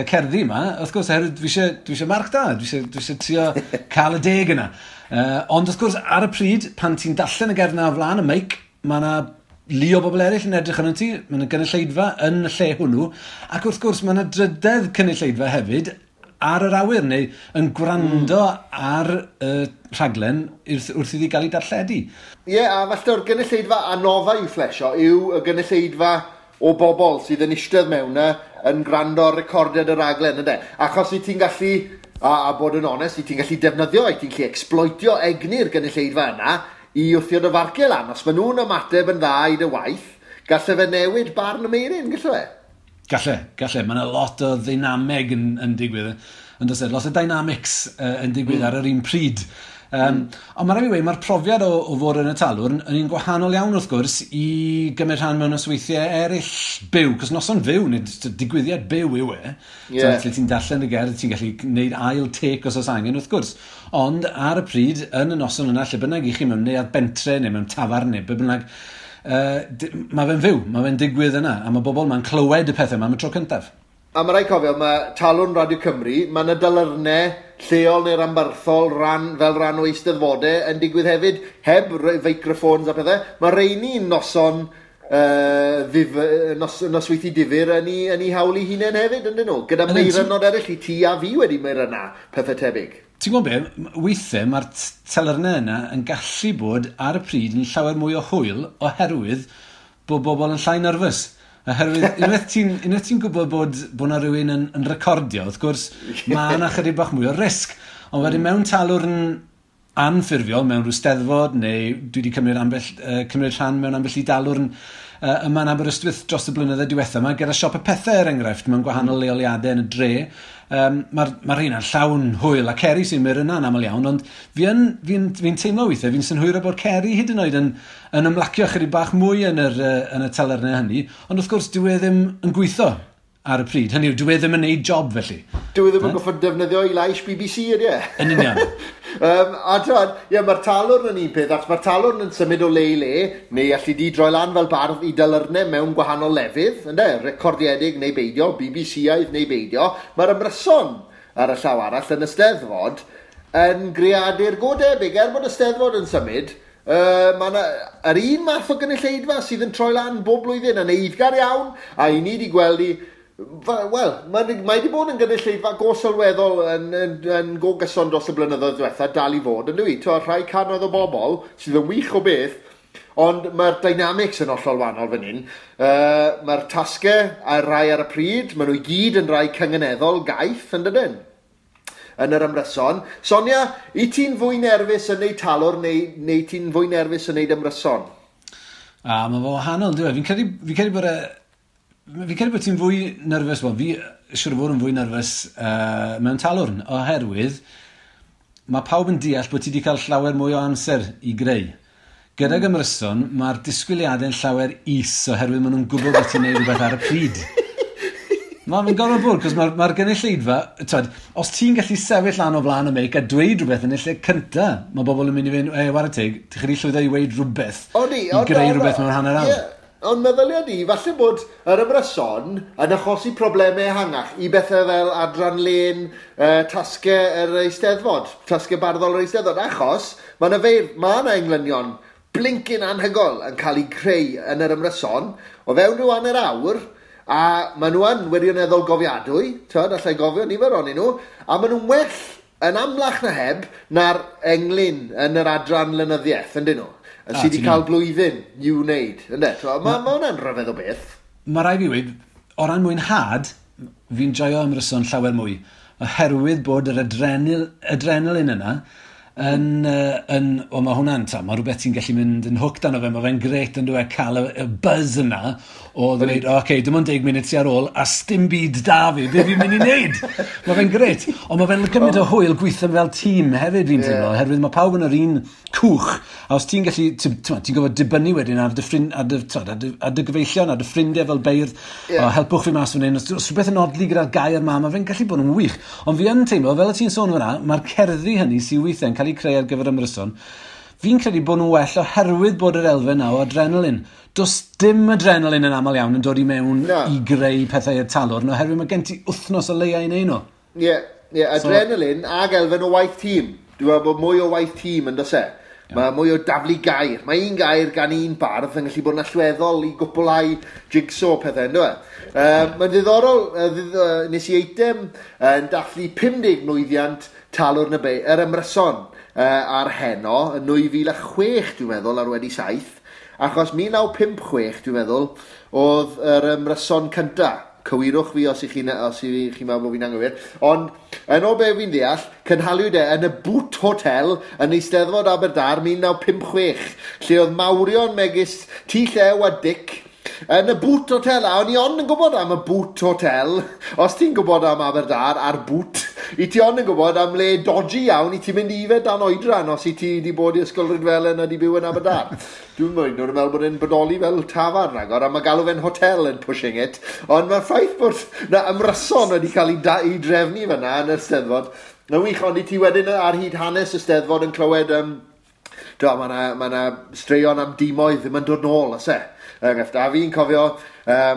cerddi yma, wrth gwrs, oherwydd dwi eisiau marc da, dwi eisiau trio cael y 10 yna. Ond wrth gwrs, ar y pryd, pan ti'n darllen y gerdd na o flaen y meic, mae yna lu o bobl eraill yn edrych arno ti, mae yna gynulleidfa yn y lle hwnnw, ac wrth gwrs mae yna drydedd cynulleidfa hefyd ar yr awyr neu yn gwrando ar y rhaglen wrth iddi gael ei darlledu. Ie, yeah, a falle o'r gynulleidfa anodda i'w phlesio yw y gynulleidfa o bobl sydd yn eistedd mewn yna yn gwrando ar recordiad y raglen, yndê? Achos i ti'n gallu, a bod yn onest, i ti'n gallu defnyddio, i ti'n gallu exploitio egni'r gynulleidfa yna i wthio dy farciau lan. Os maen nhw'n ymateb yn dda i dy waith, galle fe newid barn y Meuryn, galle fe? Galle, galle. Mae yna lot o ddeinameg yn digwydd. Yn does e? Lot o dynamics yn digwydd ar yr un pryd. Ond mae'n rhaid i weud, mae'r profiad o fod yn y talwrn yn un gwahanol iawn wrth gwrs i gymryd rhan mewn nosweithiau eraill byw, cos noson fyw, neu digwyddiad byw yw e. So, lle ti'n darllen y gerdd, ti'n gallu gwneud ail take os oes angen wrth gwrs. Ond ar y pryd, yn y noson yna, lle bynnag i chi mewn neuadd bentre neu mewn tafarn neu be bynnag, mae fe'n fyw, mae fe'n digwydd yna, a mae bobl ma'n clywed y pethau yma am y tro cyntaf. A mae rhaid cofio, mae Talwrn Radio Cymru, mae yna dalyrnau lleol neu ranbarthol fel rhan o eisteddfodau yn digwydd hefyd, heb feicroffons a pethau. Mae rheini'n noson nosweithi difyr yn ei hawl ei hunain hefyd, yn dyn nhw? Gyda meirynod eraill i ti a fi wedi meiryna, pethau tebyg. Ti'n gwybod be, weithiau mae'r telyrnau yna yn gallu bod ar y pryd yn llawer mwy o hwyl oherwydd bod bobl yn llai nerfus. Oherwydd unwaith ti'n gwybod bod 'na rhywun yn recordio, wrth gwrs, mae yna chydig bach mwy o risg. Ond wedyn mewn talwrn anffurfiol, mewn rhyw steddfod, neu dwi wedi cymryd rhan mewn ambell i dalwrn yma yn Aberystwyth dros y blynyddoedd diwethaf yma, gyda siop y pethau er enghraifft, mewn gwahanol leoliadau yn y dre. Mae'r rheina'n llawn hwyl, a Ceri sy'n mynd yna'n aml iawn, ond fi teimlo weithiau, fi'n synhwyro bod Ceri hyd yn oed yn ymlacio chydig bach mwy yn y telyrnau hynny, ond wrth gwrs dyw e ddim yn gweithio ar y pryd. Hynny yw, dyw e ddim yn neud job felly. Dyw e ddim yn goffod defnyddio ei lais BBC, ydy e? Yn union. A t'mod, ie, mae'r talwrn yn un peth, achos mae'r talwrn yn symud o le i le, neu allu di droi lan fel bardd i dalyrnau mewn gwahanol lefydd, ynde, recordiedig neu beidio, BBC-aidd neu beidio. Mae'r ymryson ar y llaw arall yn y Steddfod yn greadur go debyg, er bod y Steddfod yn symud, Mae yna yr un math o gynulleidfa sydd yn troi lan bob blwyddyn yn eiddgar iawn, a i ni wedi gweld i, wel, mae wedi bod yn gynulleidfa go sylweddol yn go gyson dros y blynyddoedd diwetha, dal i fod, yn dwi? T'wo, rhai cannoedd o bobl sydd yn wych o beth, ond mae'r dynamics yn hollol wahanol fan hyn. Mae'r tasgau a'r rai ar y pryd, maen nhw i gyd yn rai cynganeddol gaeth, yn dydyn? Yn yr ymryson. Sonia, i ti'n fwy nerfus yn neud talwrn neu ti'n fwy nerfus yn neud ymryson? A mae fo wahanol, dyw e? Fi'n credu bod ti'n fwy nerfus, wel, fi siŵr o fod yn fwy nerfus mewn talwrn, oherwydd mae pawb yn deall bod ti wedi cael llawer mwy o amser i greu. Gydag ymryson, mae'r disgwyliadau'n llawer is oherwydd maen nhw'n gwybod bod ti'n neud rhywbeth ar y pryd. Mae'n gorfod bod, cos mae'r gynulleidfa, twed, os ti'n gallu sefyll lan o flaen y meic a dweud rhywbeth yn y lle cynta, mae bobl yn mynd i fynd, e, whare teg, ti'n chdi llwyddo i weud rhywbeth, i greu rhywbeth mewn hanner awr. Yeah. Ond meddylia di, falle bod yr ymryson yn achosi problemau ehangach i bethau fel adran lên, tasgau yr Eisteddfod, tasgau barddol yr Eisteddfod, achos mae yna feir, mae yna englynion blincyn anhygoel yn cael eu creu yn yr ymryson, o fewn rhyw hanner awr, a maen nhw yn wirioneddol gofiadwy, twyd, allai gofio nifer ohonyn nhw, a maen nhw'n well yn amlach na heb na'r englyn yn yr adran lenyddiaeth, yndyn nhw? Sydd wedi cael blwyddyn i'w wneud, ynde? Mae hwnna'n rhyfedd o beth. Mae rai fi weud, o ran mwynhad, fi'n joio ymryson llawer mwy, oherwydd bod yr adrenalin yna yn o, mae hwnna'n, ta, mae rhywbeth ti'n gallu mynd yn hooked arno fe, mae fe'n gret yn dweud cael y buzz yna o ddweud, oce, okay, dim ond 10 munud sy ar ôl, a sdim byd da fi, be fi'n mynd i wneud? Mae fe'n gret, ond mae fe'n gymaint o hwyl gweithio fel tîm hefyd fi'n teimlo, oherwydd mae pawb yn yr un cwch, a os ti'n gallu, ti'n gorfod dibynnu wedyn ar dy ffrind, ar dy, t'wod, ar dy gyfeillion, ar dy ffrindiau fel beirdd, o, helpwch fi mas fan hyn, os rhywbeth yn odli gyda'r gair ma, mae fe'n gallu bod yn wych. Ond fi yn teimlo, fel y ti'n sôn fyna, mae'r cerddi hynny sydd weithiau'n cael eu creu ar gyfer ymryson, fi'n credu bod nhw'n well oherwydd bod yr elfen na o adrenalin. Does dim adrenalin yn aml iawn yn dod i mewn i greu pethau i'r talwrn, oherwydd mae gen ti wythnos o leia i neud nhw. Ie, yeah, adrenalin ag elfen o waith tîm. Dwi'n meddwl bod mwy o waith tîm yn does e? Mae mwy o daflu gair. Mae un gair gan un bardd yn gallu bod yn allweddol i gwblhau jigsaw pethau, ynddo e? Mae'n ddiddorol, nes i eitem yn dathlu 50 mlwyddiant talwrn y yr ymryson ar heno yn 2006, dwi'n meddwl, ar wedi 7, achos 1956, dwi'n meddwl, oedd yr ymryson cynta. Cywirwch fi os i chi'n meddwl bod fi'n anghywir. Ond, yn ôl be fi'n deall, cynhaliwyd e yn y Boot Hotel yn Eisteddfod Aberdâr 1956, lle oedd mawrion megis T Llew a Dic yn y Boot Hotel. A o'n i ond yn gwybod am y Boot Hotel. Os ti'n gwybod am Aberdâr a'r Boot, i ti ond yn gwybod am le dodgy iawn i ti'n mynd i yfed dan oedran os i ti wedi bod i Ysgol Rhydfelen a di byw yn Aberdâr. Dwi'n meddwl, nhw'n meddwl bod e'n bodoli fel tafarn ragor, a mae galw fe'n hotel yn pushing it. Ond mae'r ffaith bod na ymryson wedi cael ei drefnu fyna yn yr Steddfod. Na wych, ond i ti wedyn ar hyd hanes y Steddfod yn clywed, mae 'na straeon am dimoedd ddim yn dod nôl, oes e? A fi'n cofio,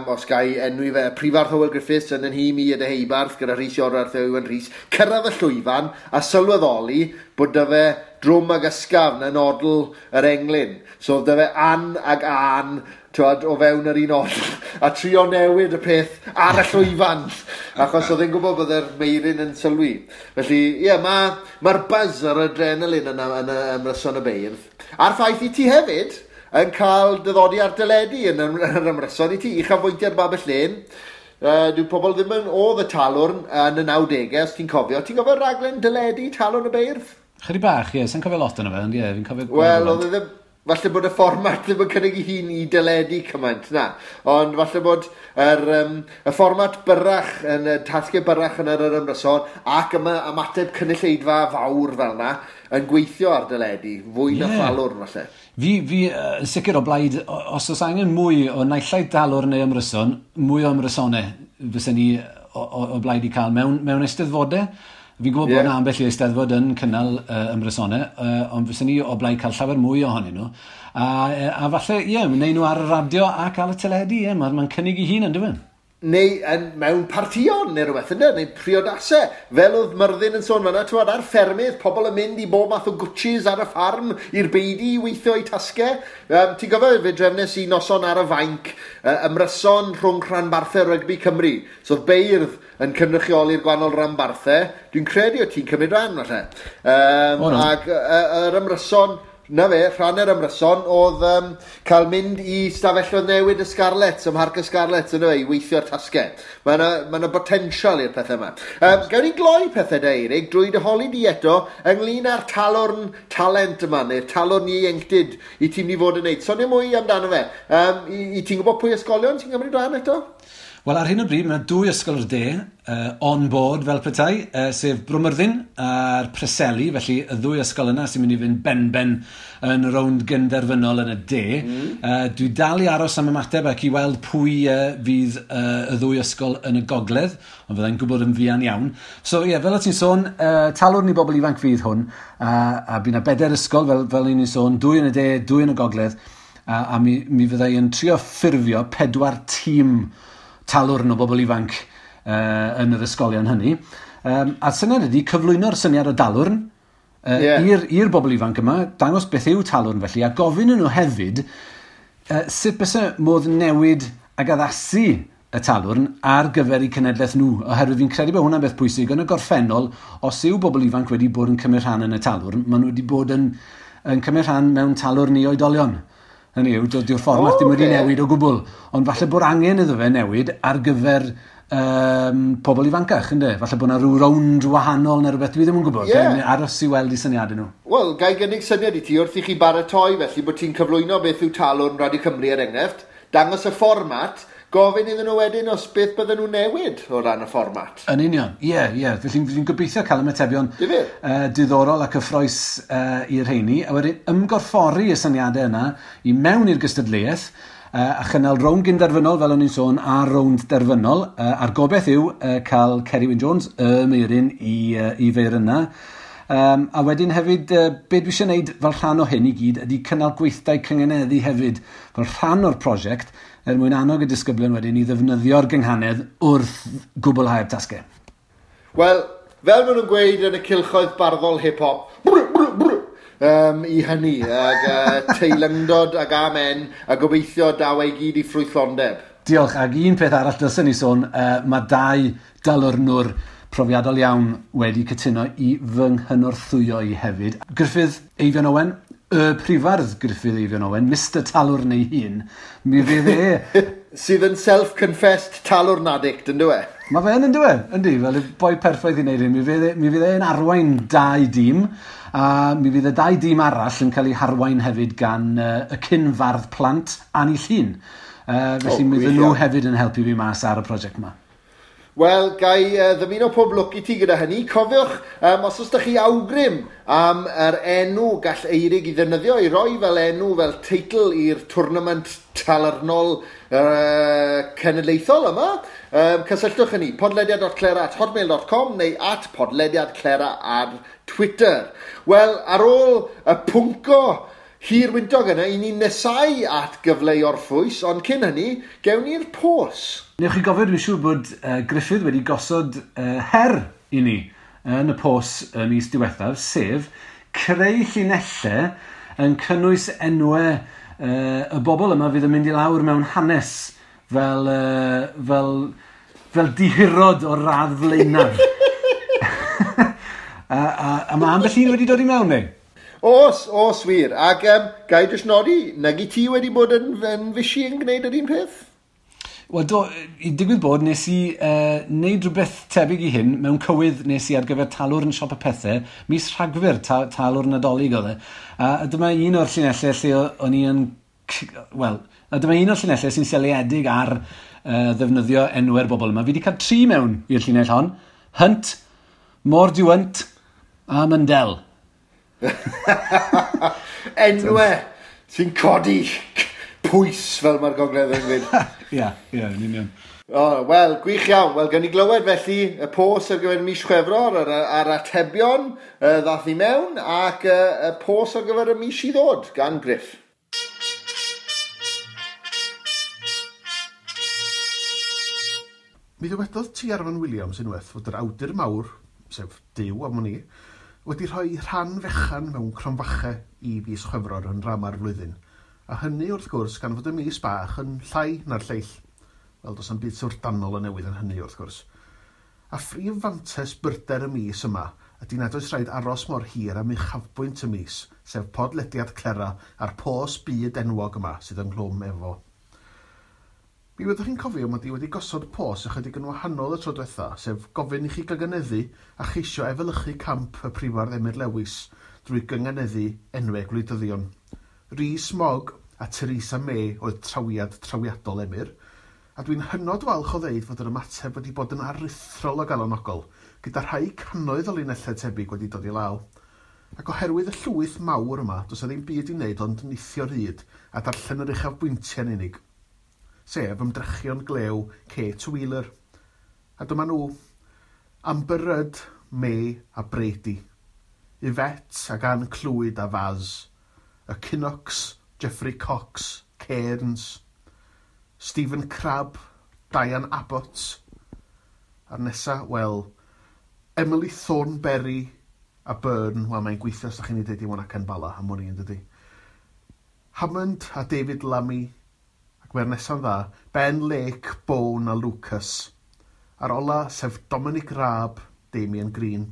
os ga i enwi fe, Prifardd Hywel Griffiths yn nhîm i y Deheubarth gyda Rhys Iorwerth a Iwan Rhys, cyrraedd y llwyfan a sylweddoli bod 'da fe drwm ag ysgafn yn odl yr englyn. So oedd 'da fe an ag an, t'wod, o fewn yr un odl, a trio newid y peth ar y llwyfan, achos oedd e'n gwybod bod yr Meiryn yn sylwi. Felly, ie, mae'r buzz a'r adrenalin yna yn y ymryson y beirdd. A'r ffaith i ti hefyd yn cael dyddodi ar deledu yn yr ymryson i ti, uchafbwyntiau'r Babell Lên. Dyw pobl ddim yn oedd y talwrn yn y 90au, os ti'n cofio. Ti'n cofio raglen deledu Talwrn y Beirdd? Chydig bach, ie, sa'n cofio lot yna fe, ond ie, fi'n cofio Wel, oedd e ddim, falle bod y fformat ddim yn cynnig ei hun i deledu cymaint, na. Ond falle bod y fformat byrrach, yn y tasgau byrrach yn yr ymryson, ac ymateb cynulleidfa fawr fel na, yn gweithio ar deledu, fwy na thalwrn, falle. Fi yn sicr o blaid, os oes angen mwy o naill ai dalwrn neu ymryson, mwy o ymrysonau fysen ni o blaid i cael mewn eisteddfodau. Fi'n gwybod bod yna ambell i eisteddfod yn cynnal ymrysonau, ond fysen ni o blaid cael llawer mwy ohonyn nhw. A falle, ie, wneud nhw ar y radio ac ar y teledu, ie, mae'n cynnig ei hun, yn dyw e? Neu mewn partïon neu rhywbeth, ynde? Neu priodasau. Fel oedd Myrddin yn sôn fan'na, t'wod, ar ffermydd, pobl yn mynd i bob math o gwtshis ar y ffarm i'r beudy i weithio eu tasgau. Ti'n gofio, fe drefnes i noson ar y fainc, ymryson rhwng rhanbarthau rygbi Cymru. So oedd beirdd yn cynrychioli'r gwahanol ranbarthau. Dwi'n credu o ti'n cymryd rhan, falle. O, no. Ac yr ymryson, na fe, rhan yr ymryson oedd cael mynd i stafelloedd newid y Scarlets, ym Mharc y Scarlets, ynddo fe, i weithio'r tasgau. Mae yna botensial i'r pethau yma. Gawn ni gloi pethau da, Eirig, drwy dy holi di eto ynglyn â'r talwrn talent yma, neu'r talwrn ieuenctid i ti'n mynd i fod yn neud. Sonio mwy amdano fe. I ti'n gwybod pwy ysgolion ti'n cymryd rhan eto? Wel, ar hyn o bryd, mae yna dwy ysgol o'r de, on board fel petai, sef Bro Myrddin a'r Preseli, felly y ddwy ysgol yna sy'n mynd i fynd ben-ben yn rownd gynderfynol yn y de. Dwi dal i aros am ymateb ac i weld pwy fydd y ddwy ysgol yn y gogledd, ond fyddai'n gwybod yn fuan iawn. So ie, fel o ti'n sôn, talwrn i bobl ifanc fydd hwn, a bydd yna 4 ysgol, fel ni'n sôn, 2 yn y de, 2 yn y gogledd, a mi fyddai yn trio ffurfio 4 tîm talwrn o bobl ifanc yn yr ysgolion hynny. A'r syniad ydy cyflwyno'r syniad o dalwrn i'r bobl ifanc yma, dangos beth yw talwrn felly, a gofyn nhw hefyd sut byse modd newid ag addasu y talwrn ar gyfer eu cenedlaeth nhw, oherwydd fi'n credu bod hwnna'n beth pwysig. Yn y gorffennol, os yw bobl ifanc wedi bod yn cymryd rhan yn y talwrn, maen nhw wedi bod yn cymryd rhan mewn talwrn i oedolion. Hynny yw, dyw'r fformat ddim wedi newid o gwbl, ond falle bod angen iddo fe newid ar gyfer pobl ifancach, ynde? Falle bod yna rhyw rownd wahanol neu rhywbeth, dwi ddim yn gwybod. Aros i weld i syniadau nhw. Wel, ga i gynnig syniad i ti wrth i chi baratoi felly bod ti'n cyflwyno beth yw talwrn Radio Cymru er enghraifft, dangos y fformat, gofyn iddyn nhw wedyn os beth bydden nhw newid o ran y fformat. Yn union, ie. Felly fi'n gobeithio cael ymatebion diddorol a cyffrous i'r rheini, a wedyn ymgorffori y syniadau yna i mewn i'r gystadleuaeth, a chynnal rownd gynderfynol, fel o'n i'n sôn, a rownd derfynol, a'r gobeith yw cael Ceri Wyn Jones, y Meiryn, i feir yna. A wedyn hefyd, be dwi eisiau gwneud fel rhan o hyn i gyd ydy cynnal gweithdai cyngeneddu hefyd, fel rhan o'r prosiect, er mwyn annog y disgyblion wedyn i ddefnyddio'r gynghanedd wrth gwblhau'r tasgau. Wel, fel maen nhw'n gweud yn y cylchoedd barddol hip-hop, brr, brr, brr, i hynny, ag teilyngdod ag amen, a gobeithio daw ei gyd i ffrwythlondeb. Diolch, ac un peth arall dylsen ni sôn, mae 2 dalwrnwr profiadol iawn wedi cytuno i fy nghynorthwyo i hefyd. Gruffydd Eifion Owen, y prifardd Gruffydd Eifion Owen, Mr Talwrn ei hun, mi fydd e... Sydd yn self-confessed talwrn addict, yn dyw e? Mae fe yn dyw e, yndi, fel y boi perffaith i wneud hyn. Mi fydd e'n arwain 2 dîm, a mi fydd y 2 dîm arall yn cael eu harwain hefyd gan y cyn-fardd plant Annie Llun. Felly mi fydden nhw hefyd yn helpu fi mas ar y prosiect yma. Wel, ga i ddymuno pob lwc i ti gyda hynny. Cofiwch, os oes 'da chi awgrym am yr enw gall Eirig i ddefnyddio, i roi fel enw, fel teitl i'r tournament talwrnol cenedlaethol yma, cysylltwch â ni, podlediad.clera@hotmail.com neu @podlediadclera ar Twitter. Wel, ar ôl y pwnco hir wyntog yna, i ni'n nesau at gyfle i orffwys, ond cyn hynny, gewn ni'r pos. Newch chi gofio, dwi'n siŵr bod Gruffydd wedi gosod her i ni yn y pos y mis diwethaf, sef creu llinellau yn cynnwys enwau y bobl yma fydd yn mynd i lawr mewn hanes fel dihirod o'r radd flaenaf. A mae ambell un wedi dod i mewn, neu? Os wir. Ac ga i jyst nodi, nag i ti wedi bod yn fysi yn gwneud yr un peth? Wel, do, i digwydd bod, nes i wneud rhywbeth tebyg i hyn mewn cywydd nes i ar gyfer talwrn Siop y Pethe, mis Rhagfyr, talwrn Nadolig oedd e. A dyma un o'r llinellau lle o'n i yn... Wel, a dyma un o'r llinellau sy'n seiliedig ar ddefnyddio enwau'r bobl yma. Fi wedi cael 3 mewn i'r llinell hon. Hunt, Mordiwnt a Mundell. Enwau sy'n codi pwys fel mae'r gogledd yn gweud. Ie, yn union. Wel, gwych iawn. Wel, gawn ni glywed felly y pos ar gyfer mis Chwefror, a'r atebion ddath i mewn, ac y pos ar gyfer y mis i ddod gan Gruff. Mi ddywedodd T. Arfon Williams unwaith fod yr awdur mawr, sef Duw am wn i, wedi rhoi rhan fechan mewn cromfache i fis Chwefror yn rama'r flwyddyn, a hynny wrth gwrs gan fod y mis bach yn llai na'r lleill. Wel, does 'na'm byd syfrdanol o newydd yn hynny wrth gwrs. A phrif fantes byrder y mis yma ydy nad oes rhaid aros mor hir am uchafbwynt y mis, sef podlediad Clera a'r pos byd enwog yma sydd ynghlwm efo. Mi fyddwch chi'n cofio mod i wedi gosod pos ychydig yn wahanol y tro diwetha, sef gofyn i chi gynganeddu a cheisio efelychu camp y prifardd Emyr Lewis drwy gynganeddu enwau gwleidyddion. Rhys Mogg a Theresa May oedd trawiad trawiadol Emyr, a dwi'n hynod falch o ddeud fod yr ymateb wedi bod yn aruthrol o galonogol, gyda rhai cannoedd o linellau tebyg wedi dod i law. Ac oherwydd y llwyth mawr yma, does 'na ddim byd i wneud ond nithio'r hyd a darllen yr uchafbwyntiau'n unig, sef ymdrechion glew Kate Wheeler. A dyma nhw, Amber Rudd, May a Brady, Yvette ac Ann Clwyd a Faz, y Kinnocks, Geoffrey Cox, Cairns, Stephen Crabb, Diane Abbott, a'r nesa, wel, Emily Thornberry a Byrne, wel mae'n gweithio os ydych chi'n ei dweud i Wanacen Bala am wn i yn dydi. Hammond a David Lammy, ac mae'r nesa'n dda, Ben Lake, Bone a Lucas. A'r ola, sef Dominic Raab, Damien Green.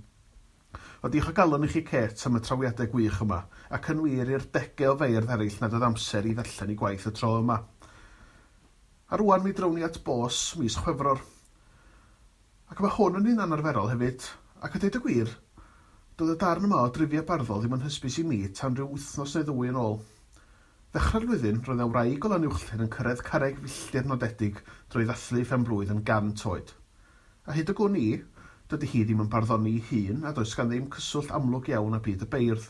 O diolch o galon i chi Kate am y trawiadau gwych yma, ac yn wir i'r degau o feirdd eraill nad oedd amser i ddarllen i gwaith y tro yma. A rwan mi drown ni at bos mis Chwefror. Ac mae hwn yn un anarferol hefyd, ac a deud y gwir, doedd y darn yma o drifia barddol ddim yn hysbys i mi tan rhyw wythnos neu ddwy yn ôl. Ddechrau'r flwyddyn, roedd 'na wraig o Lanuwchllyn yn cyrraedd carreg filltir nodedig drwy ddathlu ei phen-blwydd yn 100 oed. A hyd y gwn i, dydy hi ddim yn barddoni ei hun a does gan ddim cyswllt amlwg iawn â byd y beirdd.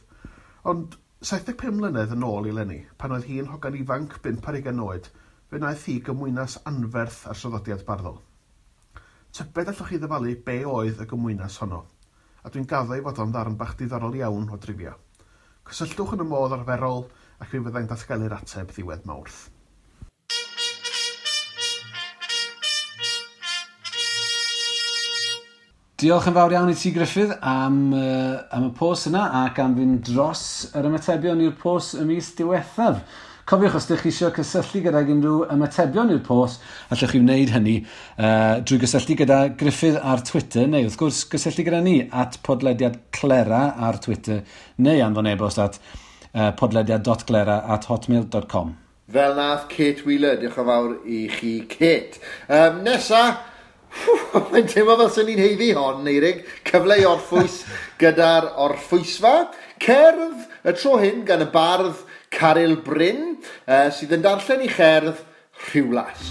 Ond 75 mlynedd yn ôl i eleni, pan oedd hi'n hogan ifanc 25 oed, fe wnaeth hi gymwynas anferth ar traddodiad barddol. Tybed allwch chi ddyfalu be oedd y gymwynas honno? A dwi'n gaddo ei fod o'n ddarn bach diddorol iawn o drivia. Cysylltwch yn y modd arferol ac mi fyddai'n datgelu'r ateb ddiwedd Mawrth. Diolch yn fawr iawn i ti Gruffydd am y pos yna ac am fynd dros yr ymatebion i'r pos y mis diwethaf. Cofiwch, os ydych chi eisiau cysylltu gydag unrhyw ymatebion i'r pos, allwch chi wneud hynny drwy gysylltu gyda Gruffydd ar Twitter, neu wrth gwrs gysylltu gyda ni at podlediad Clera ar Twitter, neu anfon e-bost at podlediad.glera@hotmail.com. Fel nath Kate Wheeler, diolch yn fawr i chi Kate. Nesa, mae'n teimlo fel sy'n ni'n haeddu hon, Eirig. Cyfle i orffwys gyda'r orffwysfa. Cerdd y tro hyn gan y bardd Caryl Bryn, sydd yn darllen i cherdd Rhiwlas.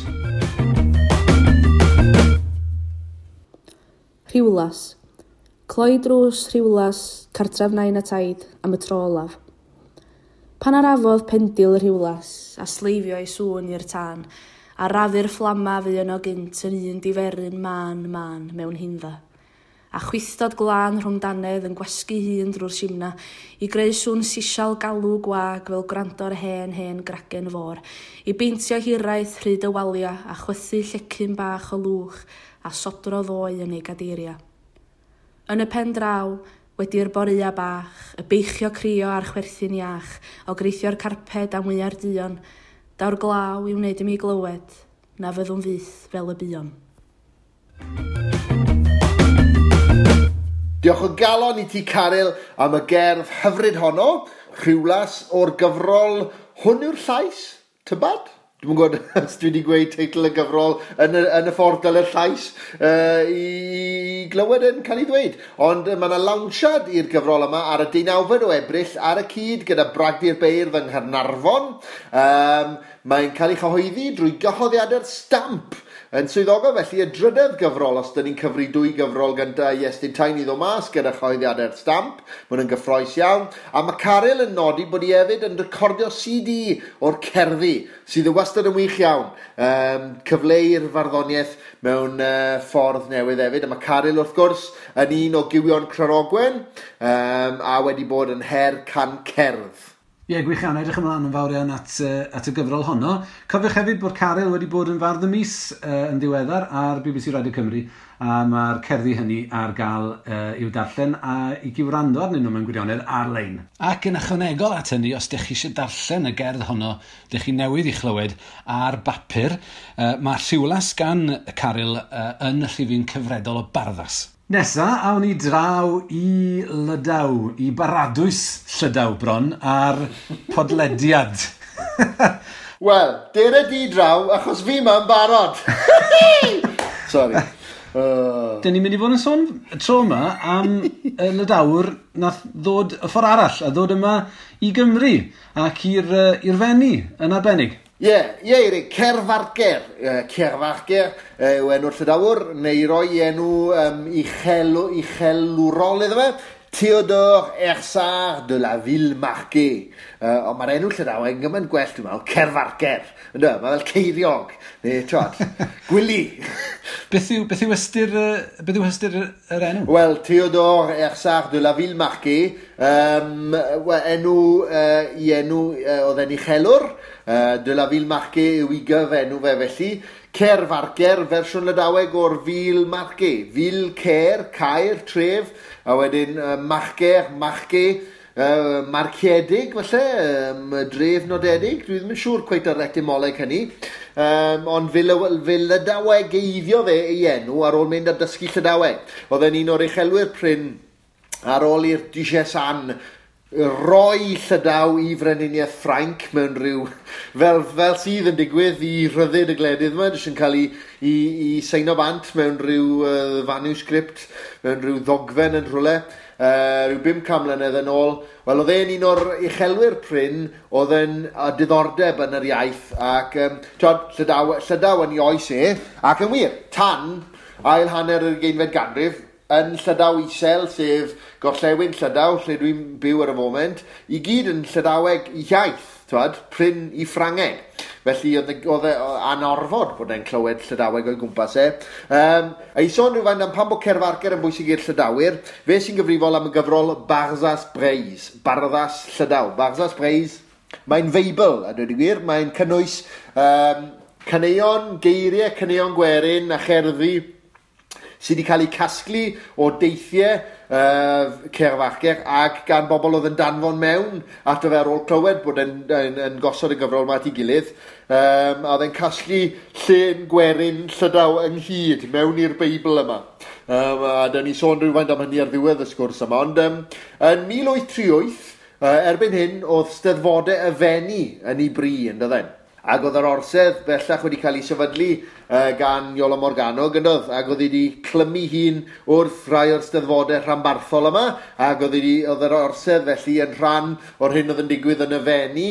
Rhiwlas. Cloi drws Rhiwlas, cartref nain a taid, am y tro olaf. Pan arafodd pendil y Rhiwlas, a sleifio ei sŵn i'r tân, a rafu'r fflama fu yno gynt yn un diferyn mân mân mewn hindda. A chwithdod glân rhwng dannedd yn gwasgu hun drwy'r simna, i greu sŵn sisial galw gwag fel gwrando'r hen hen gragen fôr, i beintio hiraeth rhyd y walia a chwythu llecyn bach o lwch a sodro ddoe yn ei gadeiria. Yn y pen draw, wedi'r boreua bach, y beichio crio a'r chwerthin iach, o greithio'r carped a mwya'r duon, daw'r glaw i wneud i mi glywed, na fyddwn fyth fel y buon. Diolch o galon i ti, Caryl, am y gerdd hyfryd honno, Rhiwlas o'r gyfrol Hwn yw'r llais, tybad? Dwi'm yn gwybod os dwi wedi gweud teitl y gyfrol yn y ffordd dyle'r llais i glywed yn cael ei ddweud. Ond mae yna lawnsiad i'r gyfrol yma ar y 19 o Ebrill ar y cyd gyda Bragdy'r Beirdd yng Nghaernarfon. Mae'n cael ei chyhoeddi drwy gyhoeddiadau'r Stamp yn swyddogol, felly y drydedd gyfrol, os dyn ni'n cyfri dwy gyfrol gyntaf i Iestyn Tyne i ddod mas gyda chyhoeddiadau'r Stamp. Mae hwn yn gyffrous iawn. A mae Caryl yn nodi bod hi hefyd yn recordio CD o'r cerddi, sydd yn wastad yn wych iawn. Cyfleu'r farddoniaeth mewn ffordd newydd hefyd. A mae Caryl, wrth gwrs, yn un o gywion Cranogwen, a wedi bod yn her can cerdd. Ie, yeah, gwych iawn, edrych ymlaen yn fawr iawn at y gyfrol honno. Cofiwch hefyd bod Caryl wedi bod yn fardd y mis yn ddiweddar ar BBC Radio Cymru, a mae'r cerddi hynny ar gael i'w darllen a i gywrando arnyn nhw mewn gwirionedd ar-lein. Ac yn ychwanegol at hynny, os ydych chi eisiau darllen y gerdd honno, ydych chi newydd i chlywed ar bapur, mae Rhiwlas gan Caryl yn y rhifyn cyfredol o Barddas. Nesa, awn ni draw i Lydaw, i baradwys Llydaw bron, ar podlediad. Wel, dere di draw, achos fi ma'n barod. Sorry. Dyn ni'n mynd i fod yn sôn y tro yma am y Lydawr nath ddod y ffordd arall, a ddod yma i Gymru ac i'r Fenni yn arbennig. Ie, ie, Eirig, Kervarker, Kervarker yw enw'r Llydawr, neu roi enw uchelwrol iddo fe, Théodore Hersart de la Villemarqué. Ond mae'r enw Llydaweg yn gymaint gwell, dwi'n meddwl, Kervarker. Ynddo, mae fel ceiriog, neu, twad, gwili. Beth yw ystyr yr enw? Wel, Théodore Hersart de la Villemarqué, enw oedd e'n uchelwr, de la Villemarqué yw i gyfenw fe felly. Kervarker, fersiwn Lydaweg o'r Villemarqué. Ville, Cer, Caer, tref, a wedyn Marquer, Marqué, marciedig falle, dref nodedig. Dwi ddim yn siŵr cweit ar etymoleg hynny. Ond fe Lydawegeiddio fe ei enw ar ôl mynd a dysgu Llydaweg. Oedd e'n un o'r uchelwyr prin ar ôl i'r Duchess Anne roi Llydaw i Frenhiniaeth Ffrainc mewn rhyw, fel sydd yn digwydd i rhyddid y gwledydd yma, jyst yn cael ei seino bant mewn rhyw manuscript, mewn rhyw ddogfen yn rhywle, rhyw 500 mlynedd yn ôl. Wel, oedd e'n un o'r uchelwyr prin, oedd e'n diddordeb yn yr iaith, ac Llydaw yn ei oes e, ac yn wir, tan ail hanner yr 20fed ganrif, yn Llydaw Isel, sef gorllewin Llydaw, lle dwi'n byw ar y foment, i gyd yn Llydaweg i iaith, twad, prin i Ffrangeg. Felly oedd e anorfod bod e'n clywed Llydaweg o'i gwmpas e. A i sôn rhywfaint am pam bod Kervarker yn bwysig i'r Llydawyr, fe sy'n gyfrifol am y gyfrol Barzaz Breiz, Barddas Llydaw. Barzaz Breiz, mae'n Feibl, a dweud y gwir, mae'n cynnwys caneuon, geiriau, caneuon gwerin a cherddi sydd wedi cael eu casglu o deithiau Kervarker ac gan bobl oedd yn danfon mewn ato fe ar ôl clywed bod yn gosod y gyfrol yma at ei gilydd. A oedd e'n casglu llên gwerin Llydaw ynghyd mewn i'r Beibl yma. A da ni sôn rhywfaint am hynny ar ddiwedd y sgwrs yma. Ond yn 1838, erbyn hyn, oedd Steddfodau y Fenni yn ei bri, yn dydden. Ac oedd yr orsedd bellach wedi cael ei sefydlu gan Iolo Morgannwg, yn doedd? Ac oedd wedi clymu hun wrth rai o'r steddfodau rhanbarthol yma, ac oedd yr orsedd felly yn rhan o'r hyn oedd yn digwydd yn y Fenni,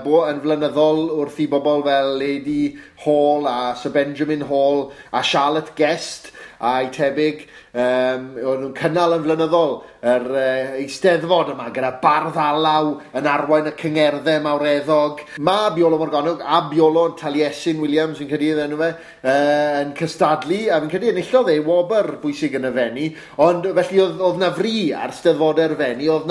bo yn flynyddol wrth i bobl fel Lady Hall a Sir Benjamin Hall a Charlotte Guest a'i tebyg, o'n nhw'n cynnal yn flynyddol yr eisteddfod yma gyda bardd alaw yn arwain y cyngerddau mawreddog. Mae Iolo Morgannwg a Iolo yn Taliesin Williams yn credu enw fe, yn cystadlu, a fi'n credu enillodd e wobr bwysig yn y Fenni, ond felly oedd na fri ar steddfodau'r Fenni, oedd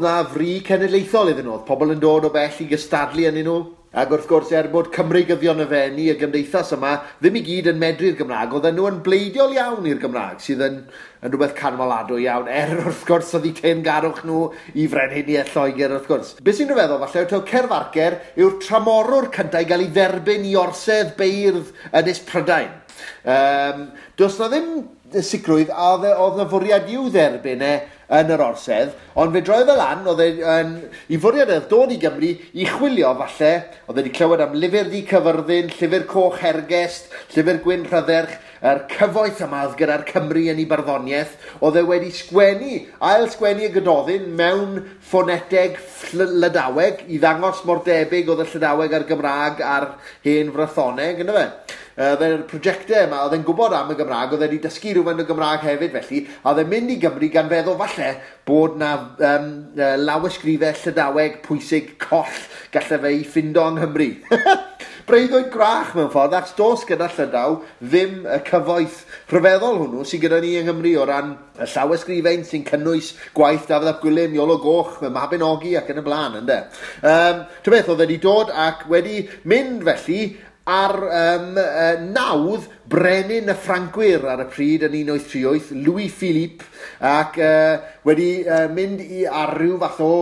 na fri cenedlaethol iddyn nhw, oedd pobl yn dod o bell i gystadlu ynddyn nhw. Ac wrth gwrs, er bod Cymreigyddion y Fenni, y gymdeithas yma, ddim i gyd yn medru'r Gymraeg, oedden nhw yn bleidiol iawn i'r Gymraeg, sydd yn rhywbeth canmoladwy iawn, er wrth gwrs oedd eu teyrngarwch nhw i Frenhiniaeth Lloegr, wrth gwrs. Be sy'n rhyfeddol falle, yw Kervarker yw'r tramorwr cyntaf i gael ei dderbyn i orsedd beirdd Ynys Prydain. Does na ddim sicrwydd a oedd na fwriad i'w dderbyn e yn yr orsedd, ond fe droedd e lan, oedd i fwriad oedd dod i Gymru i chwilio falle, oedd wedi clywed am Lyfr Du Cyfyrddin, Llyfr Coch Hergest, Llyfr Gwyn Rhydderch, yr cyfoeth yma oedd gyda'r Cymru yn ei barddoniaeth, oedd e wedi sgwennu, ail sgwennu y Gododdin mewn ffoneteg Llydaweg i ddangos mor debyg oedd y Llydaweg a'r Gymraeg a'r hen Frythoneg, ynddo fe? Oedd e'r prosiectau yma, oedd e'n gwybod am y Gymraeg, oedd e wedi dysgu rhywfaint o Gymraeg hefyd felly, a oedd e'n mynd i Gymru gan feddwl falle bod na lawysgrifau Llydaweg pwysig coll gallai fe i ffindo yng Nghymru. Breuddwyd gwrach mewn ffordd, achos does gyda Llydaw ddim y cyfoeth rhyfeddol hwnnw sydd gyda ni yng Nghymru o ran y llawysgrifen sy'n cynnwys gwaith Dafydd ap Gwilym, Iolo Goch, y Mabinogi ac yn y blaen, ynde. Ta beth, oedd wedi dod ac wedi mynd felly ar nawdd brenin y Ffrancwyr ar y pryd yn 1838, Louis Philippe, ac wedi mynd i ar ryw fath o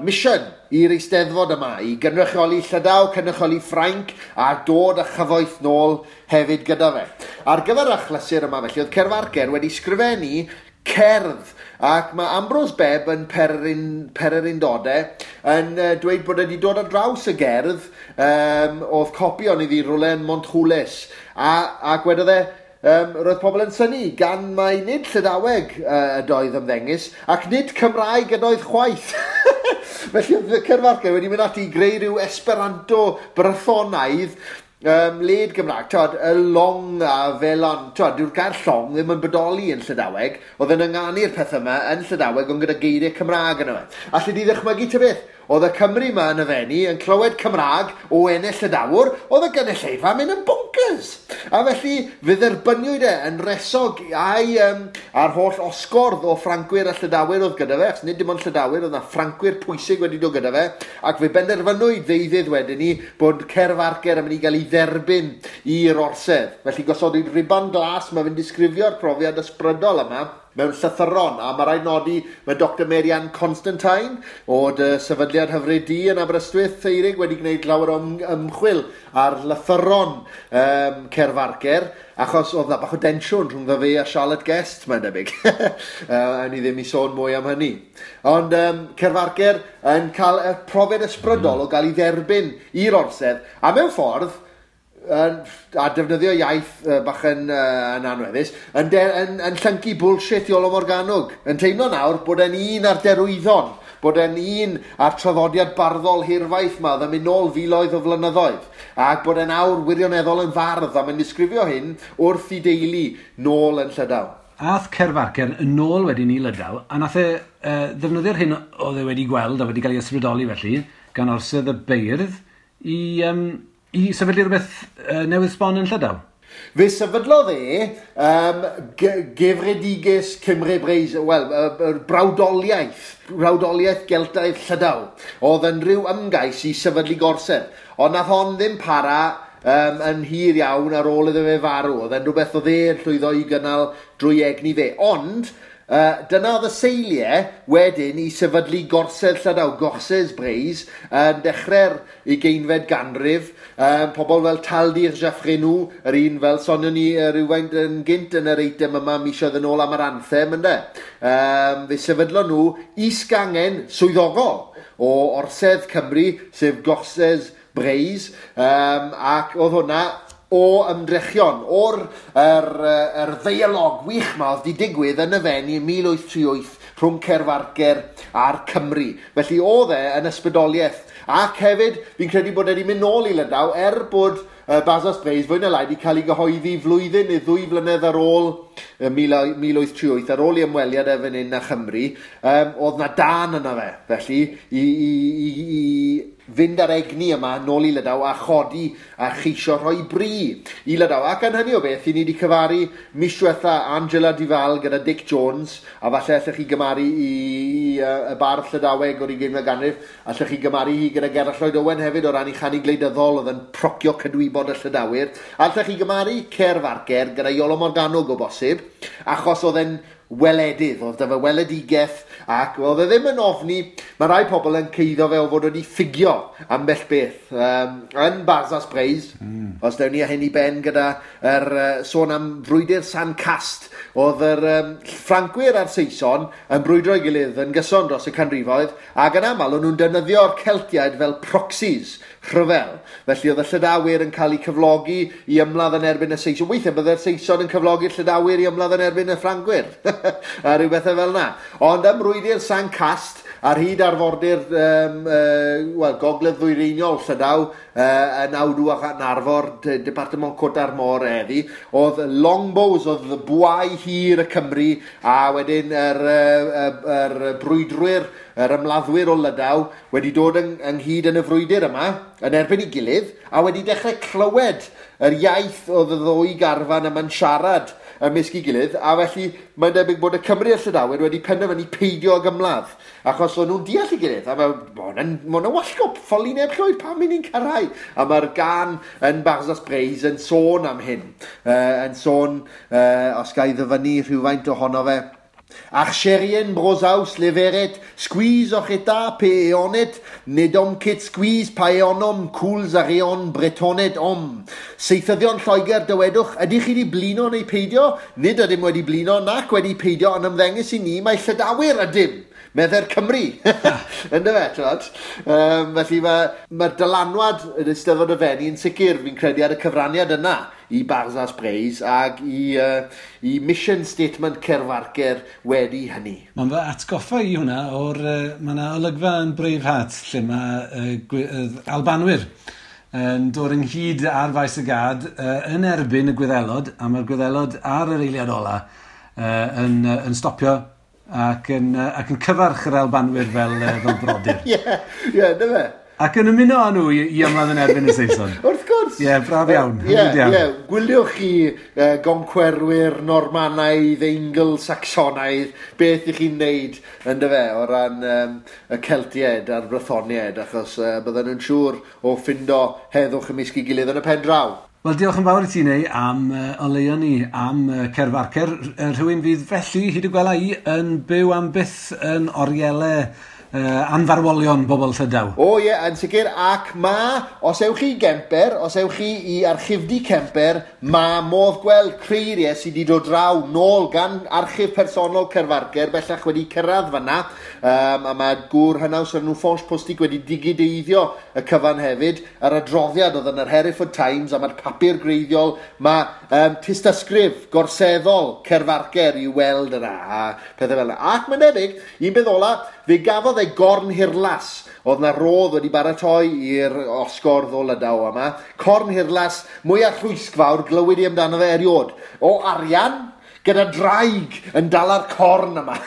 mission i'r eisteddfod yma, i gynrychioli Llydaw, cynrychioli Ffrainc, a dod â chyfoeth nôl hefyd gyda fe. Ar gyfer achlysur yma felly, oedd Kervarker wedi sgrifennu cerdd, ac mae Ambrose Bebb yn Pererindodau yn dweud bod wedi dod ar draws y gerdd, oedd copi ond iddi rhywle yn Montroules, ac wedodd e, roedd pobl yn synnu gan mai nid Llydaweg ydoedd ymddengys, ac nid Cymraeg ydoedd chwaith. Felly oedd Kervarker wedi mynd ati i greu rhyw Esperanto Brythonaidd led Gymraeg, twod, y long a felon, twod, dyw'r gair llong ddim yn bodoli yn Llydaweg, oedd yn ynganu'r peth yma yn Llydaweg ond gyda geiriau Cymraeg yno fe. Alli di ddychmygu ta beth? Oedd y Cymry yma yn y Fenni yn clywed Cymraeg o ennill Llydawr, oedd y gynulleidfa mynd yn bonkers. A felly fe dderbyniwyd e yn resog a'i a'r holl osgordd o Ffrancwyr a Llydawyr oedd gyda fe, achos nid dim ond Llydawyr, oedd na Ffrancwyr pwysig wedi dod gyda fe, ac fe benderfynwyd ddeuddydd wedyn ni bod Kervarker yn mynd i gael ei dderbyn i'r orsedd. Felly gosodwyd riban glas, mae fe'n disgrifio'r profiad ysbrydol yma mewn llythyron, a mae rhaid nodi mae Dr Marianne Constantine o dy sefydliad hyfryd di yn Aberystwyth, Eirig, wedi gwneud lawer o ymchwil ar lythyron Kervarker, achos oedd na bach o densiwn rhwng fe a Charlotte Guest, mae'n debyg. A ni ddim i sôn mwy am hynny. Ond Kervarker yn cael y profiad ysbrydol o gael ei dderbyn i'r orsedd, a mewn ffordd, a defnyddio iaith bach yn anweddus, yn llyncu bullshit Iolo Morganwg, yn teimlo nawr bod e'n un ar derwyddon, bod e'n un ar traddodiad barddol hirfaith ma, oedd yn mynd nôl filoedd o flynyddoedd, ac bod e'n awr wirioneddol yn fardd, a mae'n disgrifio hyn wrth i deulu nôl yn Llydaw. Ath Kervarker yn ôl wedyn i Lydaw, a nath e ddefnyddio'r hyn oedd e wedi gweld a wedi cael ei ysbrydoli felly, gan orsedd y beirdd, i sefydlu rhywbeth newydd sbon yn Llydaw? Fe sefydlodd e Gefrediges Cymru Breizh, wel, brawdoliaeth Geltaidd Llydaw, oedd yn rhyw ymgais i sefydlu gorsedd. Ond nath hon ddim para yn hir iawn ar ôl iddo fe farw. Oedd e'n rhywbeth oedd e'n llwyddo i gynnal drwy egni fe. Ond dyna oedd y seiliau wedyn i sefydlu gorsedd Llydaw, Gorsedd Breizh, yn dechrau'r 20fed ganrif. Pobl fel Taldir Jaffrenou, yr un fel sonion ni rhywfaint yn gynt yn yr eitem yma misoedd yn ôl am yr anthem, ynde. Fe sefydlon nhw is-gangen swyddogol o Orsedd Cymru, sef Gorsedd Breizh, ac oedd hwnna o ymdrechion, o'r ddeialog wych ma oedd di digwydd yn y Fenni yn 1838 rhwng Kervarker a'r Cymru. Felly oedd e yn ysbrydoliaeth. Ac hefyd, fi'n credu bod e wedi mynd nôl i Lydaw, er bod Barzaz Breiz fwy na lai wedi cael ei gyhoeddi flwyddyn neu ddwy flynedd ar ôl 1838, ar ôl i ymweliad e fan hyn â Chymru, oedd na dan yna fe, felly, i fynd ar egni yma nôl i Lydaw a chodi a cheisio rhoi bri i Lydaw. Ac yn hynny o beth, i ni wedi cyfaru mis diwetha Angela Duval gyda Dick Jones, a falle allech chi gymaru i y bardd Llydaweg o'r 20fed ganrif, allech chi gymaru hi gyda Gerallt Lloyd Owen hefyd o ran ei chanu gwleidyddol oedd yn procio cydwybod y Llydawwyr. Allech chi gymaru Kervarker gyda Iolo Morganwg o bosib, achos oedd e'n weledydd, oedd dyfa weledigaeth, ac oedd e ddim yn ofni. Mae rai pobl yn ceiddo fe o fod wedi ffugio ambell beth. Yn Barzaz Breiz, os dewn ni â hyn i ben gyda sôn am frwydr San Cast, oedd yr Ffrancwyr a'r Saeson yn brwydro ei gilydd yn gyson dros y canrifoedd, ac yn aml o'n nhw'n defnyddio'r Celtiaid fel proxies rhyfel. Felly oedd y Llydawyr yn cael eu cyflogi i ymladd yn erbyn y Saeson. Weithiau byddai'r Saeson yn cyflogi'r Llydawyr i ymladd yn erbyn y Ffrancwyr. A rhyw bethau fel yna. Ond ym mrwydr San Cast, ar hyd arfordir gogledd ddwyreiniol Llydaw, yn Awdw ac yn Arfor, Departement Côte d'Armor heddi, oedd longbows, oedd bwâu hir y Cymru, a wedyn yr brwydrwyr yr ymladdwyr o Lydaw wedi dod ynghyd yn y frwydr yma, yn erbyn ei gilydd, a wedi dechrau clywed yr iaith oedd y ddwy garfan yma'n siarad ymysg ei gilydd, a felly mae'n debyg bod y Cymry a'r Llydawyr wedi penderfynu peidio ag ymladd, achos o'n nhw'n deall ei gilydd, a mae hwnna'n wallgo, ffoli neb llwyd, pam i ni'n cyrraedd? A mae'r gan yn Barzaz Breiz yn sôn am hyn, yn sôn, os ga i ddyfynnu rhywfaint ohono fe. Archerien brozaus leveret, squeeze oc'h eta pe eonet, nedom ket squeeze pa eonom, cwls ar eon bretonet om. Seithyddion Lloegr dywedwch, ydych chi wedi blino neu peidio? Nid ydym wedi blino nac wedi peidio, ond ymddengys i ni mae Llydawyr ydym, medde'r Cymru. Yndyfe, t'wod? Felly mae'r dylanwad yn Eisteddfod y Fenni yn sicr, fi'n credu, ar y cyfraniad yna i Barzaz Breiz ac i mission statement Kervarker wedi hynny. Mae'n fy atgoffa i hwnna o'r... Mae yna olygfa yn Braveheart lle mae Albanwyr yn dod ynghyd ar faes y gad yn erbyn y Gwyddelod, a mae'r Gwyddelod ar yr eiliad ola yn stopio ac yn cyfarch yr Albanwyr fel brodyr. Ie, ie, dyna fe. Ac yn ymuno â nhw i ymladd yn erbyn y Saeson. Wrth gwrs. Ie, braf iawn. Ie, gwyliwch chi goncwerwyr Normanaidd, Eingl-Sacsonaidd, beth ych chi'n neud yndyfe o ran y Celtiaid a'r Brythoniaid, achos bydden nhw'n siŵr o ffindo heddwch ymysg ei gilydd yn y pen draw. Wel, diolch yn fawr i ti, Neu, am oleuo ni, am Kervarker. Rhywun fydd felly, hyd y gwela i, yn byw am byth yn orielau anfarwolion bobl Llydaw. O ie, yn sicr, ac ma, os ewch chi i Gemper, os ewch chi i archifdy Kemper, ma modd gweld creiriau sydd wedi dod draw nôl gan archif personol Kervarker, bellach wedi cyrraedd fanna, a mae gŵr hynaws ar nhw Ffonch Postig wedi digideiddio y cyfan hefyd, yr adroddiad oedd yn yr Hereford Times, a mae'r papur greiddiol, mae tystysgrif gorseddol Kervarker i'w weld yna, a pethau fel yna. Ac mae'n debyg, un beth ola, fe gafodd e gorn hirlas, oedd na rodd wedi baratoi i'r osgordd o Lydaw yma. Corn hirlas, mwyaf rhwysgfawr, glywyd i amdano fe eriod. O arian, gyda draig yn dala'r corn yma.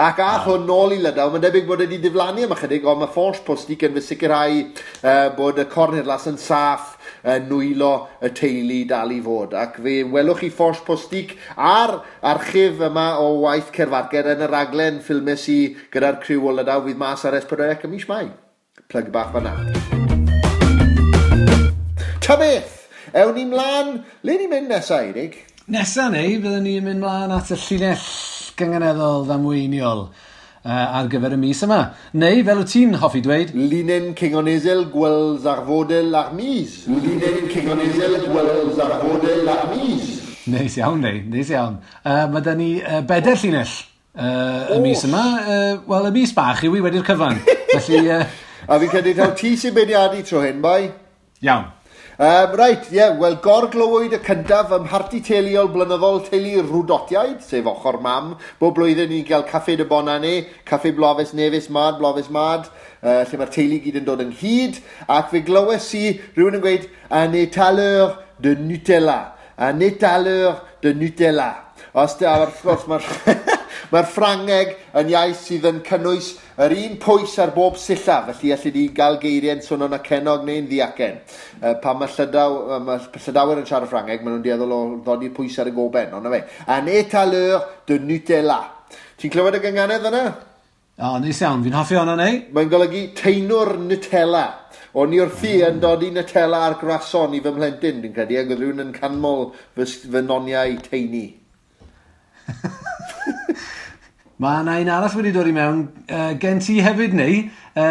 Ac ath hwn nôl i Lydaw, mae'n debyg bod wedi diflannu am ychydig, ond mae Ffonch Postig yn fy sicrhau bod y corn hirlas yn saff nwylo y teulu dal i fod. Ac fe welwch chi Ffonch Postig a'r archif yma o waith Kervarker yn y raglen ffilmes i gyda'r criw o Lydaw fydd mas ar S4C ym mis Mai. Plug bach fan'na. Ta beth, ewn ni mlaen, le ni'n mynd nesa, Eirig? Nesa neu, byddwn ni'n mynd mlaen at y llinell gynganeddol ddamweiniol ar gyfer y mis yma. Neu, fel wyt ti'n hoffi dweud... Linyn Cynganeddol Gwels Arfodel ar mis. Linyn Cynganeddol Gwels Arfodel ar mis. Neis iawn, neu, neis iawn. Mae da ni bedair llinell y mis yma. Wel, y mis bach yw i wedi'r cyfan. Felly... A fi'n credu taw ti sy'n beirniadu tro hyn, bai? Iawn. Reit, ie, wel, gorglywyd y cyntaf ym mharti teuluol blynyddol teulu Rwdotiaid, sef ochr mam. Bob blwyddyn ni'n cael caffe de Bonane, caffe Blofes Nefus Mad, Blofes Mad, lle mae'r teulu gyd yn dod ynghyd, ac fe glywes i rhywun yn gweud, un étaleur de Nutella, un étaleur de Nutella. Os da, wrth gwrs, mae'r Ffrangeg yn iaith sydd yn cynnwys yr un pwys ar bob sillaf, felly allu di gael geiriau'n swnio'n acennog neu'n ddiacen. Pan mae Llydawyr yn siarad Ffrangeg, maen nhw'n dueddol o ddodi'r pwys ar y goben, ond na fe. Un étaleur de Nutella. Ti'n clywed y gynganedd yna? O, neis iawn. Fi'n hoffi hwnna, neu? Mae'n golygu teinwr Nutella. O'n i wrthi yn dodi Nutella ar grason i fy mhlentyn, dwi'n credu, ac oedd rhywun yn canmol fy noniau teini. Mae yna un arall wedi dod i mewn gen ti hefyd, neu.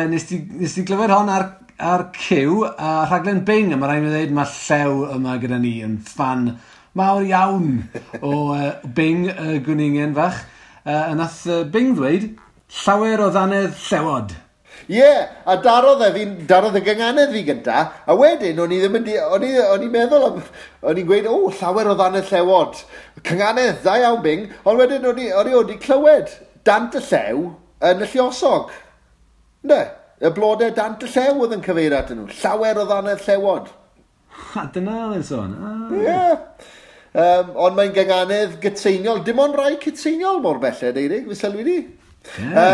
Nes ti glywed hon ar Cyw, a rhaglen Bing, a mae rhaid i mi ddweud mae Llew yma gyda ni yn ffan mawr iawn o Bing, y gwningen fach. A nath Bing ddweud, llawer o ddannedd llewod. Ie, a darodd y gynganedd fi gynta, a wedyn o'n i ddim yn o'n i'n meddwl am, o'n i'n gweud, o, llawer o ddannedd llewod. Cynganedd, da iawn Bing, ond wedyn o'n i wedi clywed dant y llew yn y lluosog. Ne, y blodau dant y llew oedd yn cyfeirio atyn nhw. Llawer o ddannedd llewod. A dyna oedd e'n sôn. Ie. Ond mae'n gynganedd gytseiniol. Dim ond rai cytseiniol mor belled, Eirig, fe sylwi di. Ie.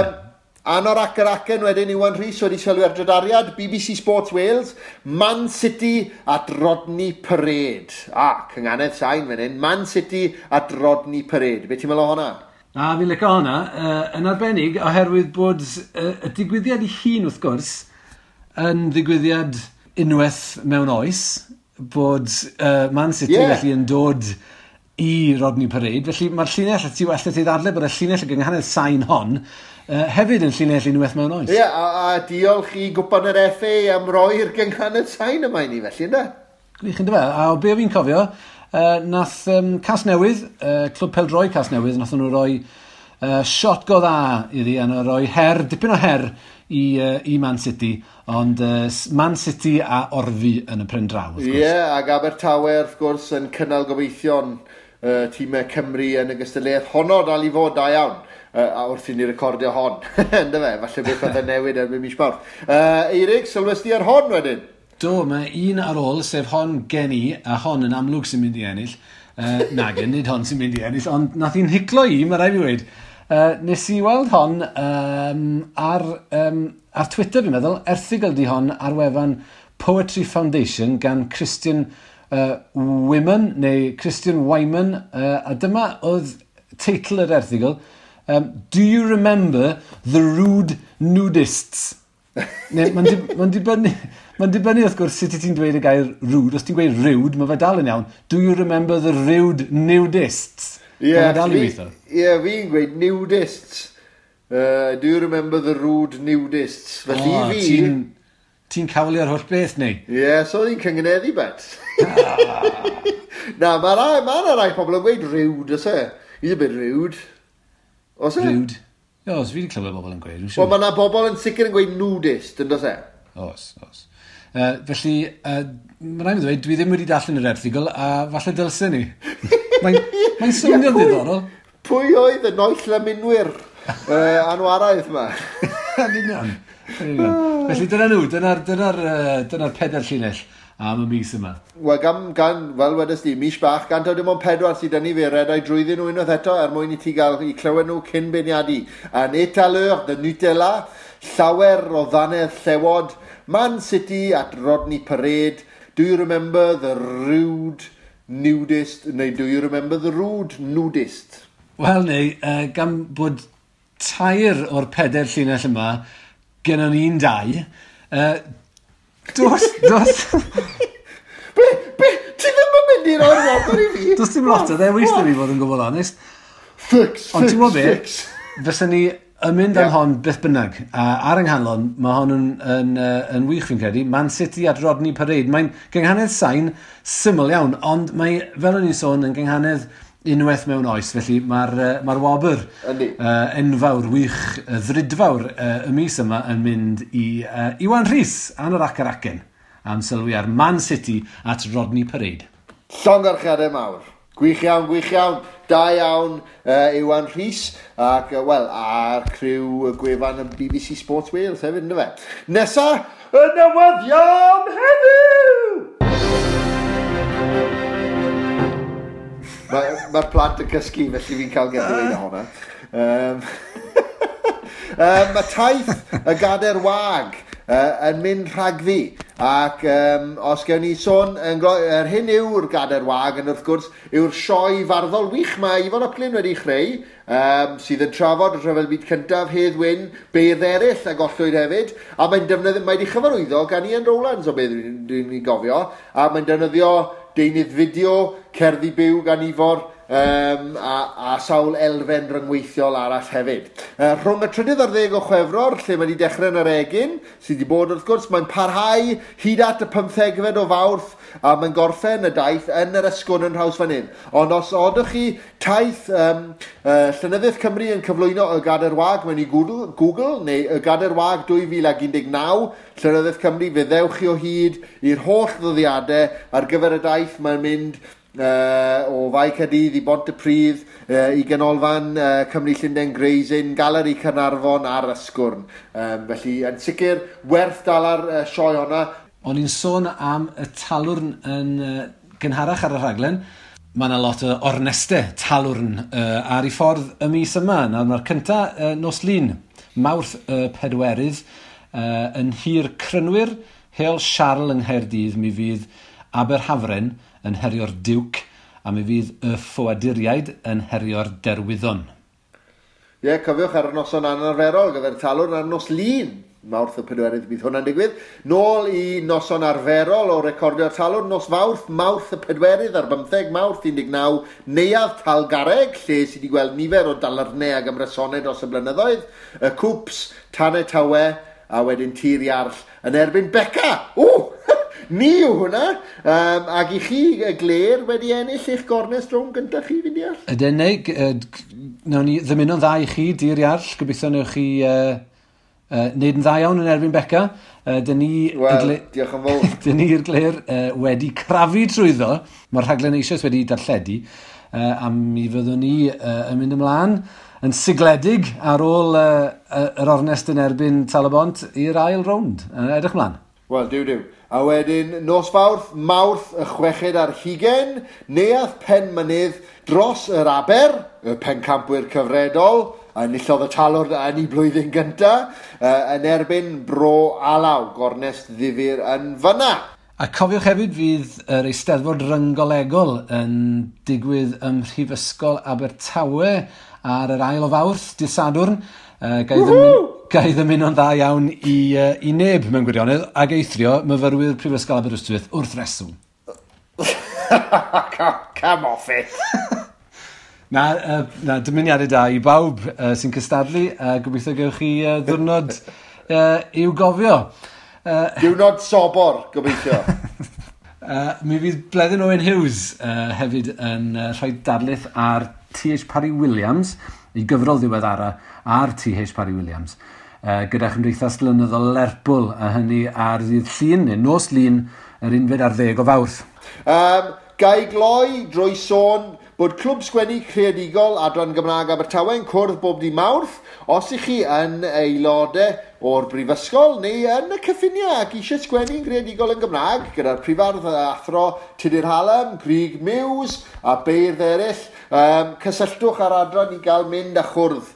Anorak yr acen wedyn, Iwan Rhys wedi sylwi ar drydariad, BBC Sports Wales, Man City at Rodney Parade. A, cynganedd sain fan hyn, Man City at Rodney Parade. Be ti'n meddwl o hwnna? Na, fi'n licio hwnna. Yn arbennig, oherwydd bod y digwyddiad i hun, wrth gwrs, yn ddigwyddiad unwaith mewn oes, bod Man City felly yn dod i Rodney Parade. Felly mae'r llinell, ti allet ti ddadle bod y llinell y gynghanedd sain hon hefyd yn llinell unwaith mewn oes. Ie, yeah, a diolch i gwpan yr FA am roi'r gynghanedd sain yma i ni felly, ynddo? Gwych, ynddo fe. A o be fi'n cofio, nath Casnewydd, Clwb Pêl-droed Casnewydd, nath nhw roi shot go dda iddi, a nhw roi her, dipyn o her i Man City, ond Man City a orfu yn y pen draw, wrth gwrs. Ie, yeah, ac Abertawe, wrth gwrs, yn cynnal gobeithion tîmau Cymru yn y gystadleuaeth honno dal i fod da iawn. A wrth i ni recordio hon, ynddo fe, falle beth oedd yn newid erbyn mis Mawrth. Eirig, sylwes di ar hon wedyn? Do, mae un ar ôl, sef hon gen i, a hon yn amlwg sy'n mynd i ennill. Nag, nid hon sy'n mynd i ennill, ond nath hi'n hiclo i, mae rhaid fi weud. Nes i weld hon ar Twitter, fi'n meddwl, erthygl di hon ar wefan Poetry Foundation gan Christian Wyman, neu Christian Wyman, a dyma oedd teitl yr erthygl, Do you remember the rude nudists? Mae'n dibynnu wrth gwrs sut ti'n dweud y gair rude. Os ti'n gweud rude, mae fe dal yn iawn. Do you remember the rude nudists? Ie, yeah, fi'n gweud nudists. Do you remember the rude nudists? Felly fi... Ti'n cawlio'r holl beth, neu? Ie, yeah, so oedd hi'n cyngeneddu bet. Na, mae yna rai pobl yn gweud rude, oes e? He's a bit rude. Oes e? Rude. Oes, fi wedi clywed bobl yn gweud. Wel, mae yna bobl yn sicr yn gweud nudist, yn does e? Oes, oes. Felly, mae rhaid i ddweud, dwi ddim wedi darllen yr erthygl, a falle dylsen ni. Mae'n swnio'n ddiddorol. Pwy oedd y noill lymunwyr anwaraidd yma? Yn union. Felly dyna nhw, dyna'r pedair llinell am y mis yma. Wel, gan, fel wedes di, mis bach, gan taw dim ond 4 sydd 'da ni, fe redai drwyddyn nhw unwaith eto er mwyn i ti gael i clywed nhw cyn beirniadu. Un étaleur de Nutella, llawer o ddannedd llewod, Man City at Rodney Parade, Do you remember the rude nudist, neu do you remember the rude nudist? Wel, neu, gan bod 3 o'r 4 llinell yma, gennon ni'n 2, dos... Be, ti ddim yn mynd i roi'r wobr i fi? Does dim lot o ddewis da fi fod yn gwbl onest. Fix, Ond ti'n gwybod be, fysa ni yn mynd am hon beth bynnag. A ar yng nghanlon, mae hon yn wych fi'n credu. Man City at Rodney Parade. Mae'n gynghanedd sain syml iawn, ond mae, fel o'n i'n sôn, yn gynghanedd unwaith mewn oes, felly mae'r wobr enfawr, wych, ddrudfawr y mis yma yn mynd i Iwan Rhys, Anorak yr acen, am sylwi ar Man City at Rodney Parade. Llongyfarchiadau mawr. Gwych iawn, gwych iawn. Da iawn, Iwan Rhys, ac, wel, a'r criw gwefan y BBC Sports Wales hefyd, ynddo fe. Nesa, y newyddion heddiw! Mae'r plant yn cysgu, felly fi'n cael get away hwnna. Mae taith y Gadair Wag yn mynd rhagddi. Ac os gewn ni sôn, yr hyn yw'r Gadair Wag, yn wrth gwrs, yw'r sioe farddol wych mae Ifan ap Glyn wedi chreu, sydd yn trafod y Rhyfel Byd Cyntaf, Hedd Wyn, beirdd eraill a gollwyd hefyd, a mae'n defnyddio, mae wedi chyfarwyddo gan Ian Rowlands o beth dwi'n gofio, a mae'n defnyddio deunydd fideo, cerddi byw gan Ifor, a sawl elfen ryngweithiol arall hefyd. Rhwng y 13 o Chwefror, lle mae wedi dechrau yn yr Egin, sydd wedi bod wrth gwrs, mae'n parhau hyd at y 15 o Fawrth, a mae'n gorffen y daith yn yr Ysgwrn yn Nhrawsfynydd. Ond os odwch chi taith Llenyddiaeth Cymru yn cyflwyno y Gadair Wag mewn i Google, neu y Gadair Wag 2019, Llenyddiaeth Cymru, fe ddewch chi o hyd i'r holl ddyddiadau ar gyfer y daith. Mae'n mynd o Fae Caerdydd i Bontypridd, i Ganolfan Cymru Llundain Gray's Inn, Galeri Caernarfon a'r Ysgwrn. Felly, yn sicr, werth dal ar sioe honna. O'n i'n sôn am y talwrn yn gynharach ar y rhaglen. Mae yna lot o ornestau talwrn ar ei ffordd y mis yma. Nawr mae'r cynta nos Lun, Mawrth y 4, yn Nhir Crynwyr, Heol Siarl yng Nghaerdydd, mi fydd Aberhafren yn herio'r Duke, a mi fydd y Ffoaduriaid yn herio'r Derwyddon. Ie, yeah, cofiwch ar y noson anarferol gyda'r talwrn ar nos Lun. Mawrth y 4 bydd hwnna'n digwydd. Nôl i noson arferol o recordio'r talwrn, nos Fawrth, Mawrth y 4 ar 15 Mawrth 19, Neuadd Talgarreg, lle sydd wedi gweld nifer o dalarnau ac ymrysonau dros y blynyddoedd, y Cwps, Tanau Tawe, a wedyn Tir Iarll yn erbyn Beca. O! Ni yw hwnna. Ac i chi, y Gler, wedi ennill eich gornest rownd gyntaf chi, fi'n deall? Ydyn, neu, nawn ni ddymuno'n dda i chi, Dir Iarll. Gobeithio newch chi wneud yn dda iawn yn erbyn Beca. Dyn ni... Wel, diolch yn fawr. Dyn ni'r Gler wedi crafu trwyddo. Mae'r rhaglen eisoes wedi darlledu. A mi fyddwn ni yn mynd ymlaen yn sigledig ar ôl yr ornest yn erbyn Tal-y-bont i'r ail rownd. Edrych ymlaen. Wel, diw diw. A wedyn, nos Fawrth, Mawrth y 26, Neuadd Penmynydd dros yr Aber, y pencampwyr cyfredol, a enillodd y talwrn yn ei blwyddyn gyntaf, yn erbyn Bro Alaw, gornest ddifyr yn fyna. A cofiwch hefyd fydd yr Eisteddfod Rynggolegol yn digwydd ym Mhrifysgol Abertawe ar yr ail o Fawrth, dydd Sadwrn. Gai ddymuno'n dda iawn i neb mewn gwirionedd, ag eithrio myfyrwyr Prifysgol Aberystwyth wrth reswm. Come off it! Na, dymuniadau da i bawb sy'n cystadlu, a gobeithio gewch chi ddiwrnod i'w gofio. Diwrnod sobor, gobeithio. Mi fydd Bleddyn Owen Hughes hefyd yn rhoi darlith ar T.H. Parry Williams, i gyfrol ddiweddara ar T.H. Parry Williams, gyda Chymdeithas Lenyddol Lerpwl, a hynny ar ddydd Llun, neu nos Lun, yr 11 o Fawrth. Gai gloi drwy sôn bod Clwb Sgwennu Creadigol Adran Gymraeg Abertawe yn cwrdd bob dydd Mawrth. Os ych chi yn aelodau o'r brifysgol neu yn y cyffiniau ac eisiau sgwennu'n greadigol yn Gymraeg gyda'r prifardd athro Tudur Hallam, Grug Muse a beirdd eraill, cysylltwch â'r adran i gael mynd a chwrdd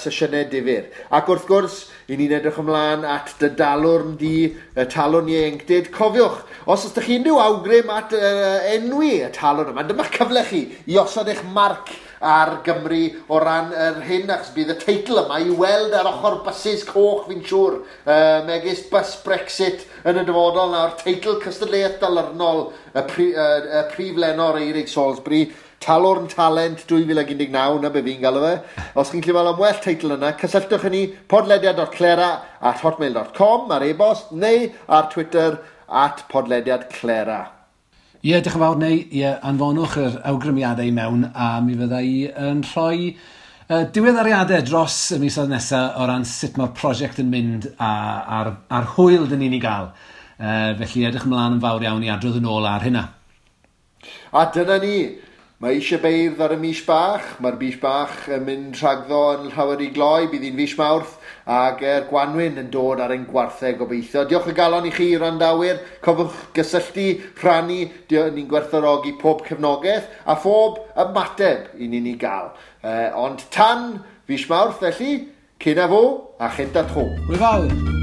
sesiynau difyr. Ac wrth gwrs, i ni'n edrych ymlaen at dy dalwrn di, y talwrn ieuenctid. Cofiwch, os ydych chi unrhyw awgrym at enwi y talwrn yma, dyma'ch cyfle chi i osod eich marc ar Gymru o ran yr hyn, achos bydd y teitl yma i weld ar ochr bysus coch, fi'n siŵr, megis bus Brexit yn y dyfodol nawr, teitl cystadleuaeth dalyrnol y prif lenor Eirig Salisbury, Talwrn Talent 2019, na be fi'n galw fe. Os chi'n gallu meddwl am well teitl yna, cysylltwch â ni podlediad.clera@hotmail.com ar e-bost neu ar Twitter @podlediadclera. Ie, diolch yn fawr, neu ie, anfonwch yr awgrymiadau i mewn a mi fydda i yn rhoi diweddariadau dros y misoedd nesaf o ran sut mae'r prosiect yn mynd a'r hwyl dyn ni'n ei gael. Felly edrych ymlaen yn fawr iawn i adrodd yn ôl ar hynna. A dyna ni. Mae eisiau beirdd ar y mis bach. Mae'r mis bach yn mynd rhagddo yn llawer i gloi. Bydd hi'n fis Mawrth ac yr gwanwyn yn dod ar ein gwarthau gobeithio. Diolch o galon i chi, randawyr. Cofiwch gysylltu, rhannu. Ni'n gwerthfawrogi pob cefnogaeth a phob ymateb i ni'n ei gael. Ond tan fis Mawrth, felly, cyn a fo a chynta tro. Hwyl fawr!